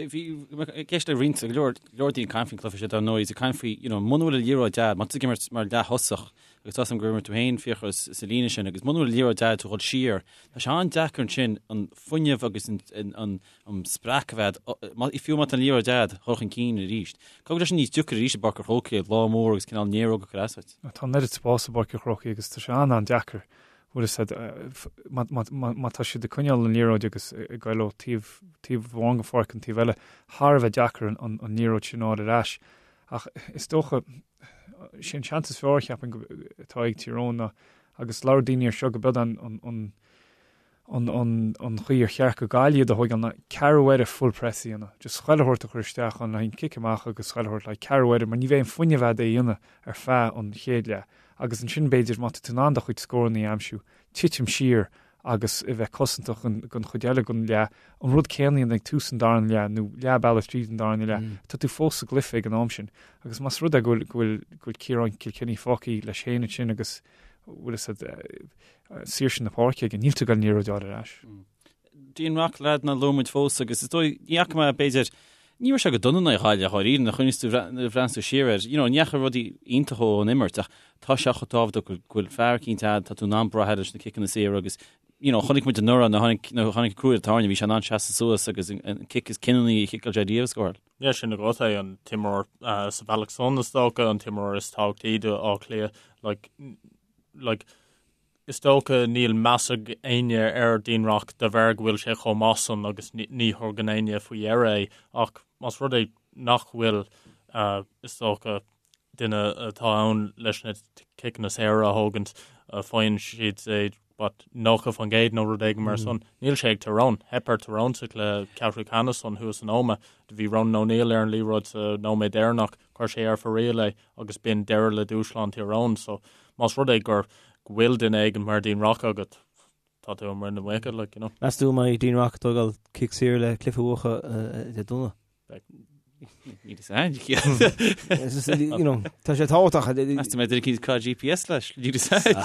Bhí i gceist le roinnt, go leor, go leor daoine ag caint faoin cluiche seo dar ndóigh, is ag caint faoi, you know, muna bhfuil an liathróid a'd, má tá tú ag imirt mar leath-thosach, agus tá a fhios agam gur imir tú féin Fiachra sa líne sin, agus muna bhfuil an liathróid a'd tú dhul siar, tá sé an-deacair ansin an fuinneamh agus an, an, an, an spreacadh a bheith a'd, fiú má tá an liathróid a'd, dhul chun cinn arís. Caithfidh go bhfuil sé sin níos deacair arís i bPáirc an Chrócaigh, lá mór agus cineál néaróg ag cur as duit. Tá an oiread spáis i bPáirc an Chrócaigh agus tá sé an-an-deacair, bhfuil fhios a'd, má tá siad ag coinneáil an liathróid agus ag goil ó taobh, taobh amháin den pháirc an taobh eile, thar a bheith deacair an liathróid sin a fháil ar ais. Ach is dócha, sé an seans is fearr, cheapfainn, atá ag Tír Eoghain ná, agus labhair daoine air seo, go b'iod an, an, an chaoi ar cheart do Ghaillimh iad a thóigeáil ná ceathrú uaire full press a dhéanamh. Just chuile shórt a chur isteach ann le haghaidh an cic amach agus chuile shórt le haghaidh ceathrú uaire mar ní bheidh an fuinneamh a'd é a dhéanamh ar feadh an chéad leath. Agus ansin b'fhéidir má tá tú in ann do chuid scóranna a aimsiú, titim siar agus a bheith cosantach don chuid eile den leath, an rud céanna a dhéanamh ag tús an darna leath nó leath bealaigh tríd an darna leath, tá tú fós sa gcluiche ag an am sin. Agus más rud é go bhfuil go bhfuil Ciarán Kilkenny fágtha leis féin ansin agus bhfuil fhios a'd saoirse na páirce aige, níl tú ag goil an liathróid a fháil ar ais. Dean Rock leaid nár luaigh muid fós agus is dóigh, ní fhaca mé b'fhéidir, ní raibh sé go dona in aghaidh Ghaillimh dháiríre, nuair a chuimhníos tú, nuair a bhreathnaíos tú siar air, you know, ní fhaca rudaí iontacha ón imirt ach tá sé chomh tábhachtach go bhfuil fear eicínt a'd, tá tú in ann brath air leis na ciceanna saora agus, you know, chonaic muid anuraidh nuair a tháinig, nuair a tháinig crú ar an tairne, bhí sé in ann seasamh suas agus an cic is cinniúnaí a chiceáil sé riamh a scóráil. Yeah, sin agat é, an t-imreoir sa bhealach san is dócha, an t-imreoir is tábhachtaí do Áth Cliath, like, like, Is dócha níl meas ag éinne ar Dean Rock de bharr go bhfuil sé chomh maith san agus ní thugann éinne faoi dheara é ach más rud é nach bhfuil is dócha duine atá ann leis na ciceanna saora a thógaint faigheann siad é what 90% nó rud éigin mar san. Níl sé ag Tyrone. Theip ar Tyrone sa chluiche ceathrú ceannais san thuas in Ómaigh. Do bhí Ronan O'Neill ar an liathróid sa nóiméad deireanach, chuir sé ar fóraoil é agus b'in deireadh le dúshlán Tyrone. So más rud é gur go bhfuil duine éigin mar Dean Rock agat, tá tú i muin na muice, like, you know. Meas tú an mbeidh Dean Rock ag tógáil cic saor le cluiche a bhuachan Dé Domhnaigh? Níl fhios a'm. You know, tá sé tábhachtach. Meas tú an mbeidh duine eicínt ag cur GPS leis? Níl fhios a'm.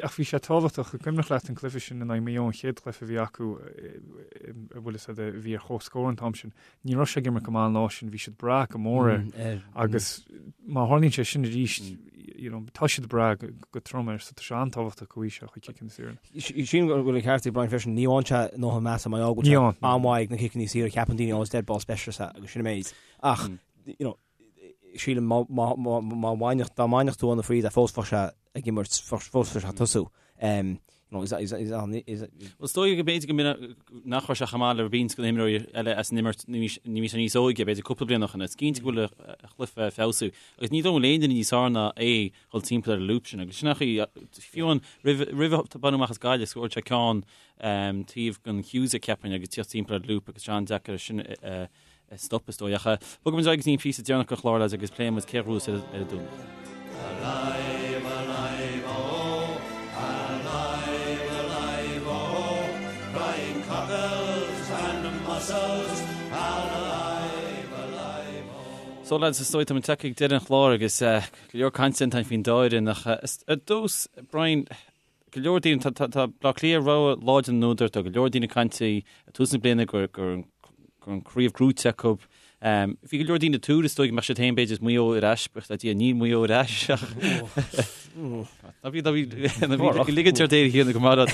Ach bhí sé tábhachtach, an cuimhneach leat an cluiche sin in aghaidh Maigh Eo, an chéad chluiche a bhí acu, a bhfuil fhios a'd, a bhí ar comhscór an t-am sin. Ní raibh sé ag imirt go maith an lá sin, bhí siad ag brath go mór air agus má tharlaíonn sé sin arís, you know, tá siad ag brath go trom air so tá sé an-tábhachtach go bhfaighidh sé a chuid ciceanna saora. Sílim go bhfuil an ceart ag Brian freisin, ní fhaigheann sé a ndóthain measa mar gheall go bhfuil sé an-mhaith ag na ciceanna saora, ceapann daoine, oh, is dead ball specialist é agus sin an méid. Ach, you know, sílim má bhainfeadh, dá mbainfeadh tú óna fríd é fós bheadh sé ag imirt, fós bheadh sé ag tosú. You know, is, is, is, is, Well, is dóigh go b'fhéidir go mb'in nach raibh sé chomh maith le roinnt de na himreoirí eile as an imirt nuair a bhí sé níos óige, b'fhéidir cúpla bliain ó shin. Is cinnte go bhfuil a chluiche ag feabhsú. Agus ní dóigh liom aon duine níos fearr ná é dhul timpeall ar an lúb sin. Agus sin ach fiú an roimh roimh a baineadh amach as Gaillimh, scóráil sé ceann taobh den Hughes cheapfainn agus tíocht timpeall ar an lúb agus sé an-deacair sin a stop is dóigh. Ach bogfaidh muid ar aghaidh go dtí an píosa deireanach den chlár lads agus pléifidh muid cé a ghnóthós ar an Domhnach. Alive, alive, oh, alive, alive, oh, crying cockles and mussels, alive, alive, oh. So lads, is dóigh tá muid tagtha ag deireadh an chláir agus go leor cainte déanta faoin dá fhoireann ach ar dtús, Brian, go leor daoine, tá Baile Átha Cliath rogha láidir na n-údar, tá go leor daoine ag caint ag tús na bliana gur gur an chraobh gnóite acu. Bhí go leor daoine ag tuar is dóigh go mbeadh siad féin b'fhéidir is Maigh Eo ar ais, buíochas le Dia níl Maigh Eo ar ais ach ná bí ná bí ná bí ag ligint ort éirí thiar go maith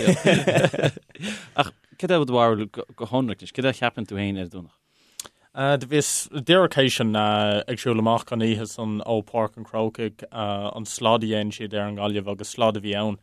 Ach cad é do bharúil go hionraic anois, cad é a cheapann tú féin ar an Domhnach? Do bhíos díreach théis an ag siúl amach an oíche san ó Páirc an Chrócaigh an slad a dhein siad ar an nGaillimh agus slad a bhí ann.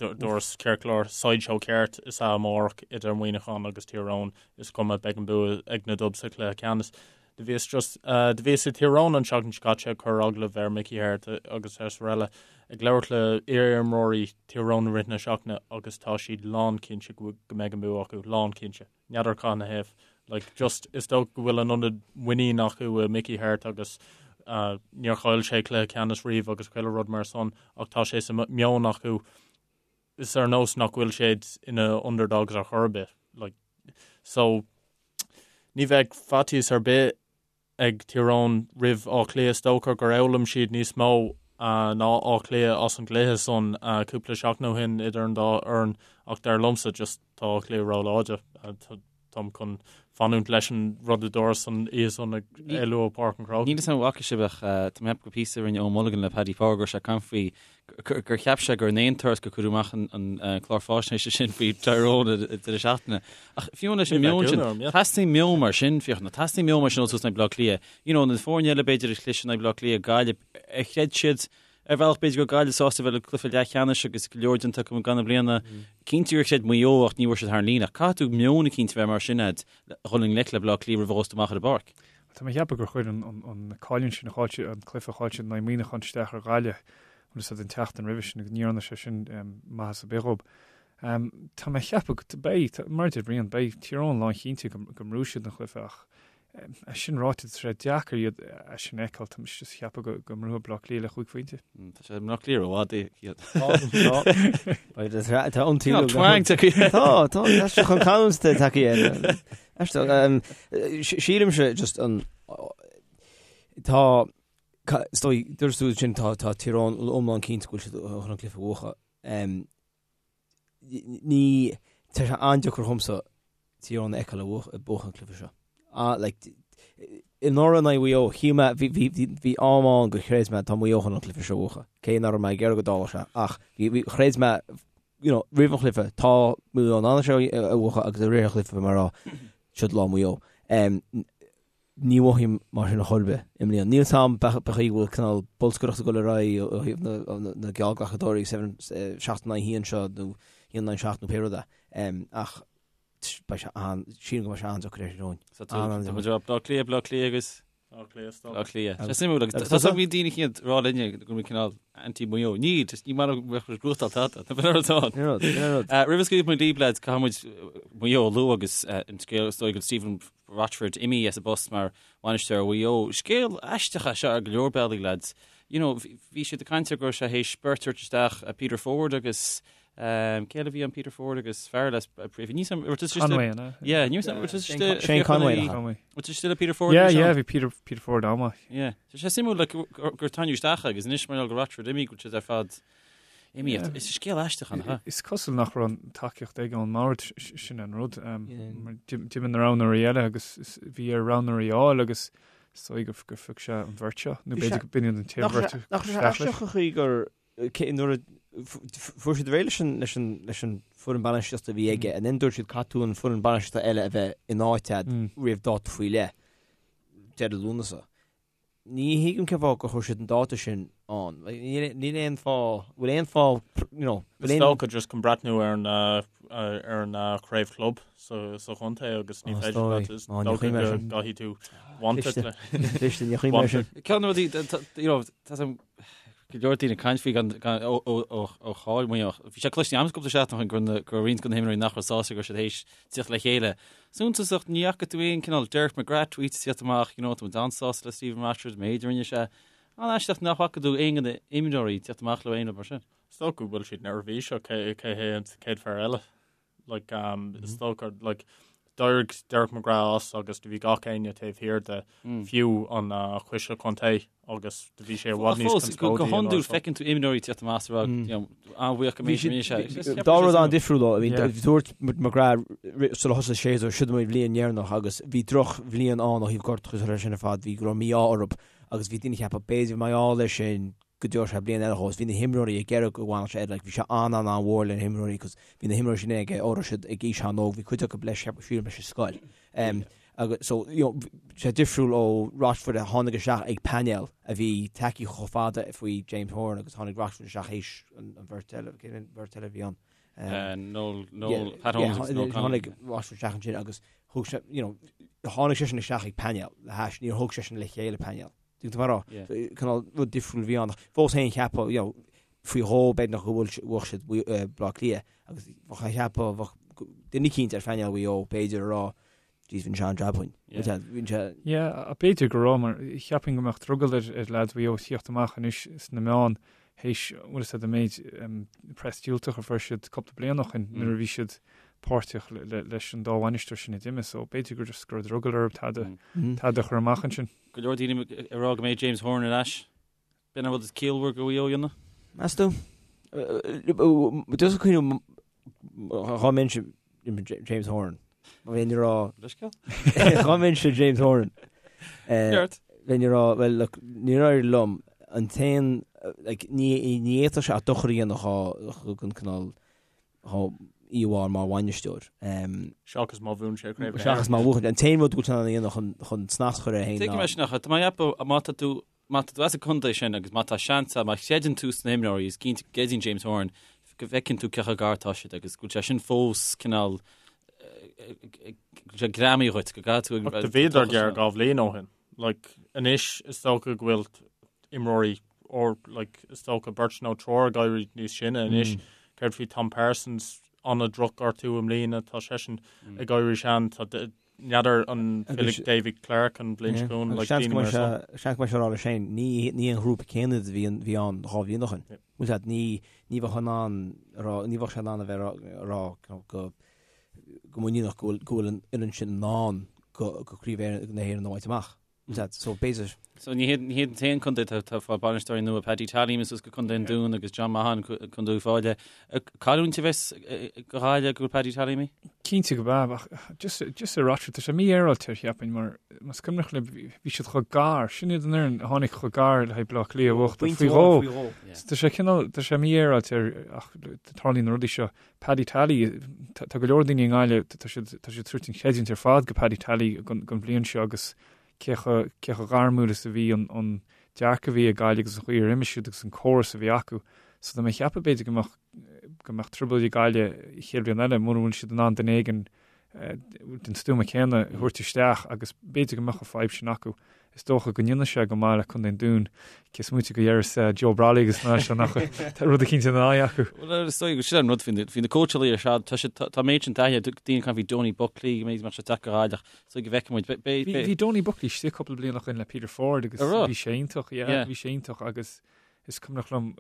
Dúras ceart go leor sideshow ceart is ea amárach idir Muineachán agus Tír Eoghain. Is cuma beidh an bua ag na Dubs sa chluiche ceannais. Do bhíos just do bhíos i Tír Eoghain an tseachtain seo caite ag cur agallamh ar Mickey Harte agus araile ag labhairt le iar-imreoirí Tír Eoghain i rith na seachtaine agus tá siad lánchinnte go mbeidh an bua acu, lánchinnte. N'fheadar cá na thaobh. Like, just, is dócha go bhfuil an ionad muinín acu i Mickey Harte agus uh, níor chaill sé cluiche ceannais riamh agus chuile rud mar san ach tá sé sa meon acu is ar nós nach bhfuil siad ina underdogs ar chor ar bith. Like, so, ní bheidh faitíos ar bith ag Tír Eoghain roimh Áth Cliath. Is dócha gur fhoghlaim siad níos mó ná Áth Cliath as an gcluiche san cúpla seachtain ó shin idir an dá fhoireann ach dar liomsa just tá Áth Cliath róláidir. Táim chun fanúint leis an rud a dúras an oíche san ag éalú ó Páirc an Chrócaigh. Níl 'fhios a'm an bhfaca sibh ach tá mé ag ceapadh gur píosa a rinne Eoin Mulligan le Paddy Power go raibh sé ag caint faoi gur cheap sé gur in aon turas gur cuireadh amach an clár faisnéise sin faoi Tyrone ag deireadh seachtaine. Ach fiú leis an meon sin, teastaíonn meon mar sin, Fiachna, teastaíonn meon mar sin ó tús in aghaidh Bleá Cliath. You know, na foirne eile b'fhéidir a chlis in aghaidh Bleá Cliath, Gaillimh, ar chreid siad ar bhealach b'fhéidir go raibh Gaillimh sásta bheith le cluiche leathcheannais agus go leor déanta acu i gcaitheamh na bliana. Cinnte gur chreid Maigh Eo ach ní bhfuair siad thar an líne. Ach caithfidh tú meon eicínt a bheith mar sin a'd le dhul i ngleic le Bleá Cliath roimh a ghabhfas tú amach ar an bpáirc. Tá mé ag ceapadh gur chuir an cailliúint sin a chaill siad, an cluiche a chaill siad in aghaidh Muineacháin isteach ar Ghaillimh, bhfuil fhios a'd an tseachtain roimhe sin agus ní dhearna sé sin maitheas ar bith dhób. Tá mé ag ceapadh go, beidh, mar a deir Brian, beidh Tír Eoghain lánchinnte go mbuafaidh siad an chluiche ach. É sin ráite, tá sé deacair iad é sin a fheiceáil, tá mise just ag ceapadh go go mbuafaidh Bleá Cliath le chúig phointe. Tá sé Bleá Cliath rófhada iad. Tá an Tá twang tagtha. Tá, tá, tá sé chun canúint tagtha air. Aisteach, sílimse just an tá is dóigh, dúirt tú sin tá tá Tír Eoghain iomlán cinnte go bhfuil siad chun an cluiche a bhuachan. Ní, tá sé an-deacair dhomsa Tír Eoghain a fheiceáil ag buachan an cluiche seo. Ah, like, anuraidh in aghaidh Mhaigh Eo, shíl mé, bhí, bhí, bhí, bhí am ann gur chreid mé tá Maigh Eo chun an cluiche seo a bhuachan. Cé nach raibh mé ag iarraidh go dtarlódh sé, ach bhí, bhí, chreid mé, you know, roimh an chluiche, tá Maigh Eo in ann seo a bhuachan agus i rith an chluiche bhí mé ag rá, siod lá Mhaigh Eo. Um, Ní mhothaím mar sin ar chor ar bith i mbliana. Níl 's a'm b'fhéidir go bhfuil cineál bolscaireacht ag dul ar aghaidh ó thaobh na geallghlacadóirí 7 in aghaidh 1 seo nó 1 in aghaidh 7 nó pé rud é. Ach beidh sé an, sílim go mbeidh sé an-deacair ar Thír Eoghain. So tá muid ag rá Bleá Cliath, Bleá Cliath agus Bleá Cliath, stop. Bleá Cliath. Sé suimiúil agus tá so bhí daoine chéad rá linne go bhfuil cineál anti-Maigh Eo. Ní, just ní maith liom go mbeadh muid gnóthachtáil tada. Tá b'in rud ann. Ní rud, ní rud. Roimh a scaoilfidh muid libh lads, caithfidh muid Maigh Eo a lua agus an scéal is dóigh go Stephen Rochford imithe as an bpost mar bhainisteoir Mhaigh Eo. Scéal aisteach é seo ar go leor bealaí, lads. You know, bhí siad ag caint ar go raibh sé théis beirt a thabhairt isteach, Peter Ford agus cé eile a bhí ann Peter Ford agus fear eile ní Conway, an ea? Yeah, ní Shane Conway. Conway. Bhfuil still Peter Ford? Yeah, yeah, bhí Peter Peter Ford an-mhaith. Yeah. Tá sé suimiúil like, gur tarraingíodh isteach agus anois mar go Rochford imithe go bhfuil siad ar fad Imithe. Is scéal aisteach an ea? Is cosúil nach raibh an tacaíocht aige ón mbord, sin an rud. D'imigh na roghnóirí eile agus bhí air roghnóirí a fháil agus is dóigh gur phioc sé an bheirt seo, nó b'fhéidir go b'in iad an t-aon bheirt a Nach raibh sé aisteach an chaoi gur nuair a fuair siad réidh leis an leis an leis an foireann bainistíochta a bhí aige and then dúirt siad caithfidh tú an foireann bainistíochta eile a bheith in áit a'd roimh dáta faoi leith, deireadh Lúnasa. Ní thuigim cén fáth gur chuir siad an dáta sin ann. Níl aon fáth, bhfuil aon fáth, you know, bhfuil aon. Is dócha just chun breathnú ar an ar an chraobh club sa sa chontae agus ní féidir leat is dócha go gcaithfidh tú wanted le. Cliste, ní chuimhin mé sin. Ceann de na rudaí, you know, tá go leor daoine ag caint faoi gan gan ó ó ó ó cháil Mhaigh Eo. Bhí sé cloiste agam cúpla seachtain ó shin go raibh go raibh roinnt de na himreoirí nach raibh sásta go raibh siad théis tíocht le chéile. Suntasach, ní fhaca tú aon cineál Derek McGrath tweet ag tíocht amach, you know, tá muid an-sásta le Stephen Rochford, an méid a rinne sé. An-aisteach nach bhfaca tú aon de na imreoirí ag tíocht amach le aon rud mar sin. Is dócha go bhfuil siad neirbhíseach cé cé hé an chéad fear eile. Like, um, is dócha, like, d'éirigh Derek McGrath as agus do bhí gach éinne taobh thiar de, fiú an uh, coiste contae. agus do bhí sé i bhfad níos conspóidí. Go hiondúil feiceann tú imreoirí tíocht amach is a rá an-bhuíoch go mbeidh sé. Dá rud an-difriúil ó, dúirt McGrath sula thosaigh an séasúr, siod mo bhliain dheireanach agus bhí drochbhliain ann ó thaobh gortuithe agus sin ar fad, bhí go raibh mí-ádh orthu agus bhí daoine ag ceapadh b'fhéidir mar gheall air sin go dtabharfadh sé bliain eile dhó agus bhí na himreoirí ag iarraidh go bhfanfadh sé air, like bhí sé an-an-an-mhór le na himreoirí cos bhí na himreoirí sin aige ó raibh siad ag aois an-óg, bhí cuid acu leis, sílim leis an scoil. Agus so, you know, sé difriúil ó Rochford a tháinig isteach ag painéal a bhí tacaí chomh fada faoi James Horan agus tháinig Rochford isteach théis an bheirt eile, cén an bheirt eile a bhí ann? Noel, Noel, Pat Holmes agus Noel Connolly. Tháinig Rochford isteach ansin agus thug sé, you know, tháinig seisean isteach ag painéal le hais, níor thug seisean le chéile painéal. Tuigeann tú mar rá? Cineál rud difriúil a bhí ann. Fós féin cheapfá, you know, faoi dhó b'fhéidir go bhfuil bhuaigh siad Baile Átha Cliath agus bheadh cheapfá bheadh duine eicínt ar phainéal Mhaigh Eo b'fhéidir a rá Jeez, bhí sé an-jab againn. Bhí sé. Yeah, b'fhéidir go raibh, mar cheapfainn go mbeadh drogall ar ar leaids Mhaigh Eo tíocht amach anois sna meáin théis, bhfuil fhios a'd, an méid press diúltach a fuair siad cúpla bliain ó shin nuair a bhí siad páirteach leis an dá bhainisteoir sin a d'imigh, so b'fhéidir gur just go raibh drogall orthu tada tada a chur amach ansin. Go leor daoine ag rá go mbeidh James Horan ar ais. B'in an rud is ciallmhar do Mhaigh Eo a dhéanamh. Meas tú? Just ag cuimhniú dá mbeinnse James Horan. Bheinn ag rá. Leithscéal? Dá mbeinnse James Horan. Ceart. Bheinn ag rá, well look, níor éirigh liom an t-aon, like, ní ní fhéadfadh sé ach dochar a dhéanamh dhá don cineál dhá íomhá mar bhainisteoir. Seachas má bhuann sé craobh na hÉireann. Seachas má bhuachann. An t-aon rud go bhfuil sé in ann a dhéanamh chun chun snas a chur air féin ná. Tuigim é sin ach tá mé ag ceapadh má tá tú Má tá tú as an contae sin agus má tá seans agat, má chreideann tú sna himreoirí, is cinnte go gcreideann James Horan go bhfeiceann tú cé chomh gar atá siad agus go bhfuil sé sin fós cineál, go bhfuil sé greamaithe dhuit, go gcaithfidh tú ag. Ach do bhíodar gearr 2 bhliain ó shin. Like, anois is dócha go bhfuil imreoirí or like is dócha beirt nó triúr ag éirí níos sine anois. Céard faoi Tom Parsons, an-drochghortú i mbliana, tá seisean ag éirí sean, tá. N'fheadar an bhfillfidh Davy Clarke an bhliain seo chugainn, like Seans go mbeidh sé, seans go mbeidh sé ag rá leis féin, ní, ní an ghrúpa céanna a bhí, bhí ann 2 bhliain ó shin. Bhfuil a fhios agat, ní, ní bheadh in ann a rá, ní bheadh sé in ann a bheith a rá go, go muiníneach go bhfuil, go bhfuil an fhoireann sin in ann go, go Craobh na hÉireann a bhaint amach. Bhfuil a fhios agat, so b'fhéidir. So ní hiad, ní hiad an t-aon contae atá, atá ag fáil bainisteoirí nua, Paddy Tally imithe suas go Contae an Dúin agus John Maughan Contae Uíbh Fhailí. Cailliúint a bheas do Ghaillimh go bhfuil Paddy Tally imithe? Cinnte go b'ea, ach just, just ar Rochford, tá sé mífhéaráilte cheapfainn mar más cuimhneach libh bhí siad chomh gar, sin iad an fhoireann a tháinig chomh gar le haghaidh Bleá Cliath a bhuachtáil faoi dhó. So tá sé cineál, tá sé mífhéaráilte ach tarlaíonn na rudaí seo. Paddy Tally, tá go leor daoine i nGaillimh, tá siad, tá siad ag tabhairt an chreidiúint ar fad go Paddy Tally don, don bhliain seo agus cé chomh, cé chomh gairmiúil is a bhí an, an dearcadh a bhí ag Gaillimh agus an chaoi ar imir siad agus an córas a bhí acu. So tá mé ag ceapadh b'fhéidir go mbeadh, go mbeadh trioblóid ag Gaillimh an chéad bhliain eile mura bhfuil siad in ann duine éigin den stuama céanna a thabhairt isteach agus b'fhéidir go mbeadh an fadhb sin acu. Is dócha go ndéanfaidh sé go maith le Contae an Dúin, cé is moite go ndéarfas Joe Brolly agus na seo nach tá rud eicínt ina aghaidh acu. Bhuel, is dóigh go sin an rud faoi na cóitseálaí ar fad, tá siad, tá méid sin taithí, daoine ag caint faoi Donie Buckley, go mbeidh sé deacair Gaillimh, is dóigh go bhfeicfidh muid. Bhí Donie Buckley istigh cúpla bliain ó shin le Peter Ford agus bhí sé iontach, yeah, bhí sé iontach agus Is cuimhneach liom,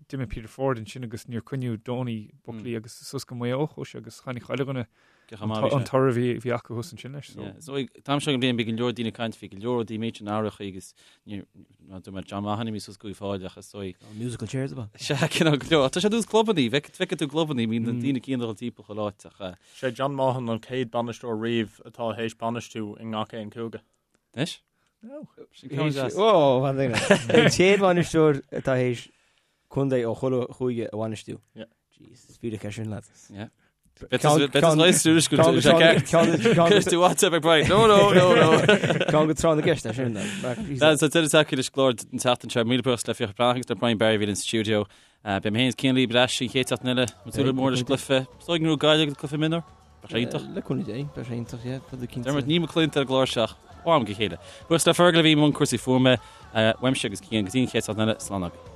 d'imigh Peter Ford ansin agus níor coinníodh Donie Buckley agus suas go Maigh Eo a chuaigh sé agus chonaic chuile dhuine an toradh a bhí acu thuas ansin leis. So an t-am seo den bhliain bhí go leor daoine ag caint, bhí go leor rudaí méid sin athraithe agus níor dúirt mé John Mahon imithe suas go Uíbh Fhailí ach is dóigh. Musical chairs ab ea? Sea, cineál go leor. Tá sé ar nós clubannaí, feicfidh tú clubannaí, bíonn na daoine céanna ag dul timpeall chuile áit ach. Sé John Maughan an chéad bainisteoir riamh atá théis bainistiú i ngach aon chúige. Anois? Sin ceann deas. Ó, fan duine. An chéad bhainisteoir atá théis contae ó chuile chúige a bhainistiú. Yeah. Jesus, fíric é sin, lads. Yeah. Tú WhatsApp ag Brian. No, no, no, no. Ceann go tráth na gceist é sin. Lads, tá deireadh tagtha leis an gclár an tseachtain seo. Míle buíochas le Fiachra Breathnach agus le Brian Barry a bhí linn sa stiúideo. Beidh mé féin is Cian libh ar ais an chéad seachtain eile. Ag súil go mór leis an gcluiche. Is dóigh go ngnóthóidh Gaillimh an cluiche mionúr. Beidh sé iontach. Le cúnamh Dé, beidh sé iontach, yeah. Beidh cinnte. Dermot, ní mo chluinte ar an gclár seo ach ó am go chéile. Buíochas le Fergal a bhí i mbun cúrsaí fuaime. Uaimse agus Cian go dtí an chéad seachtain eile, slán agaibh.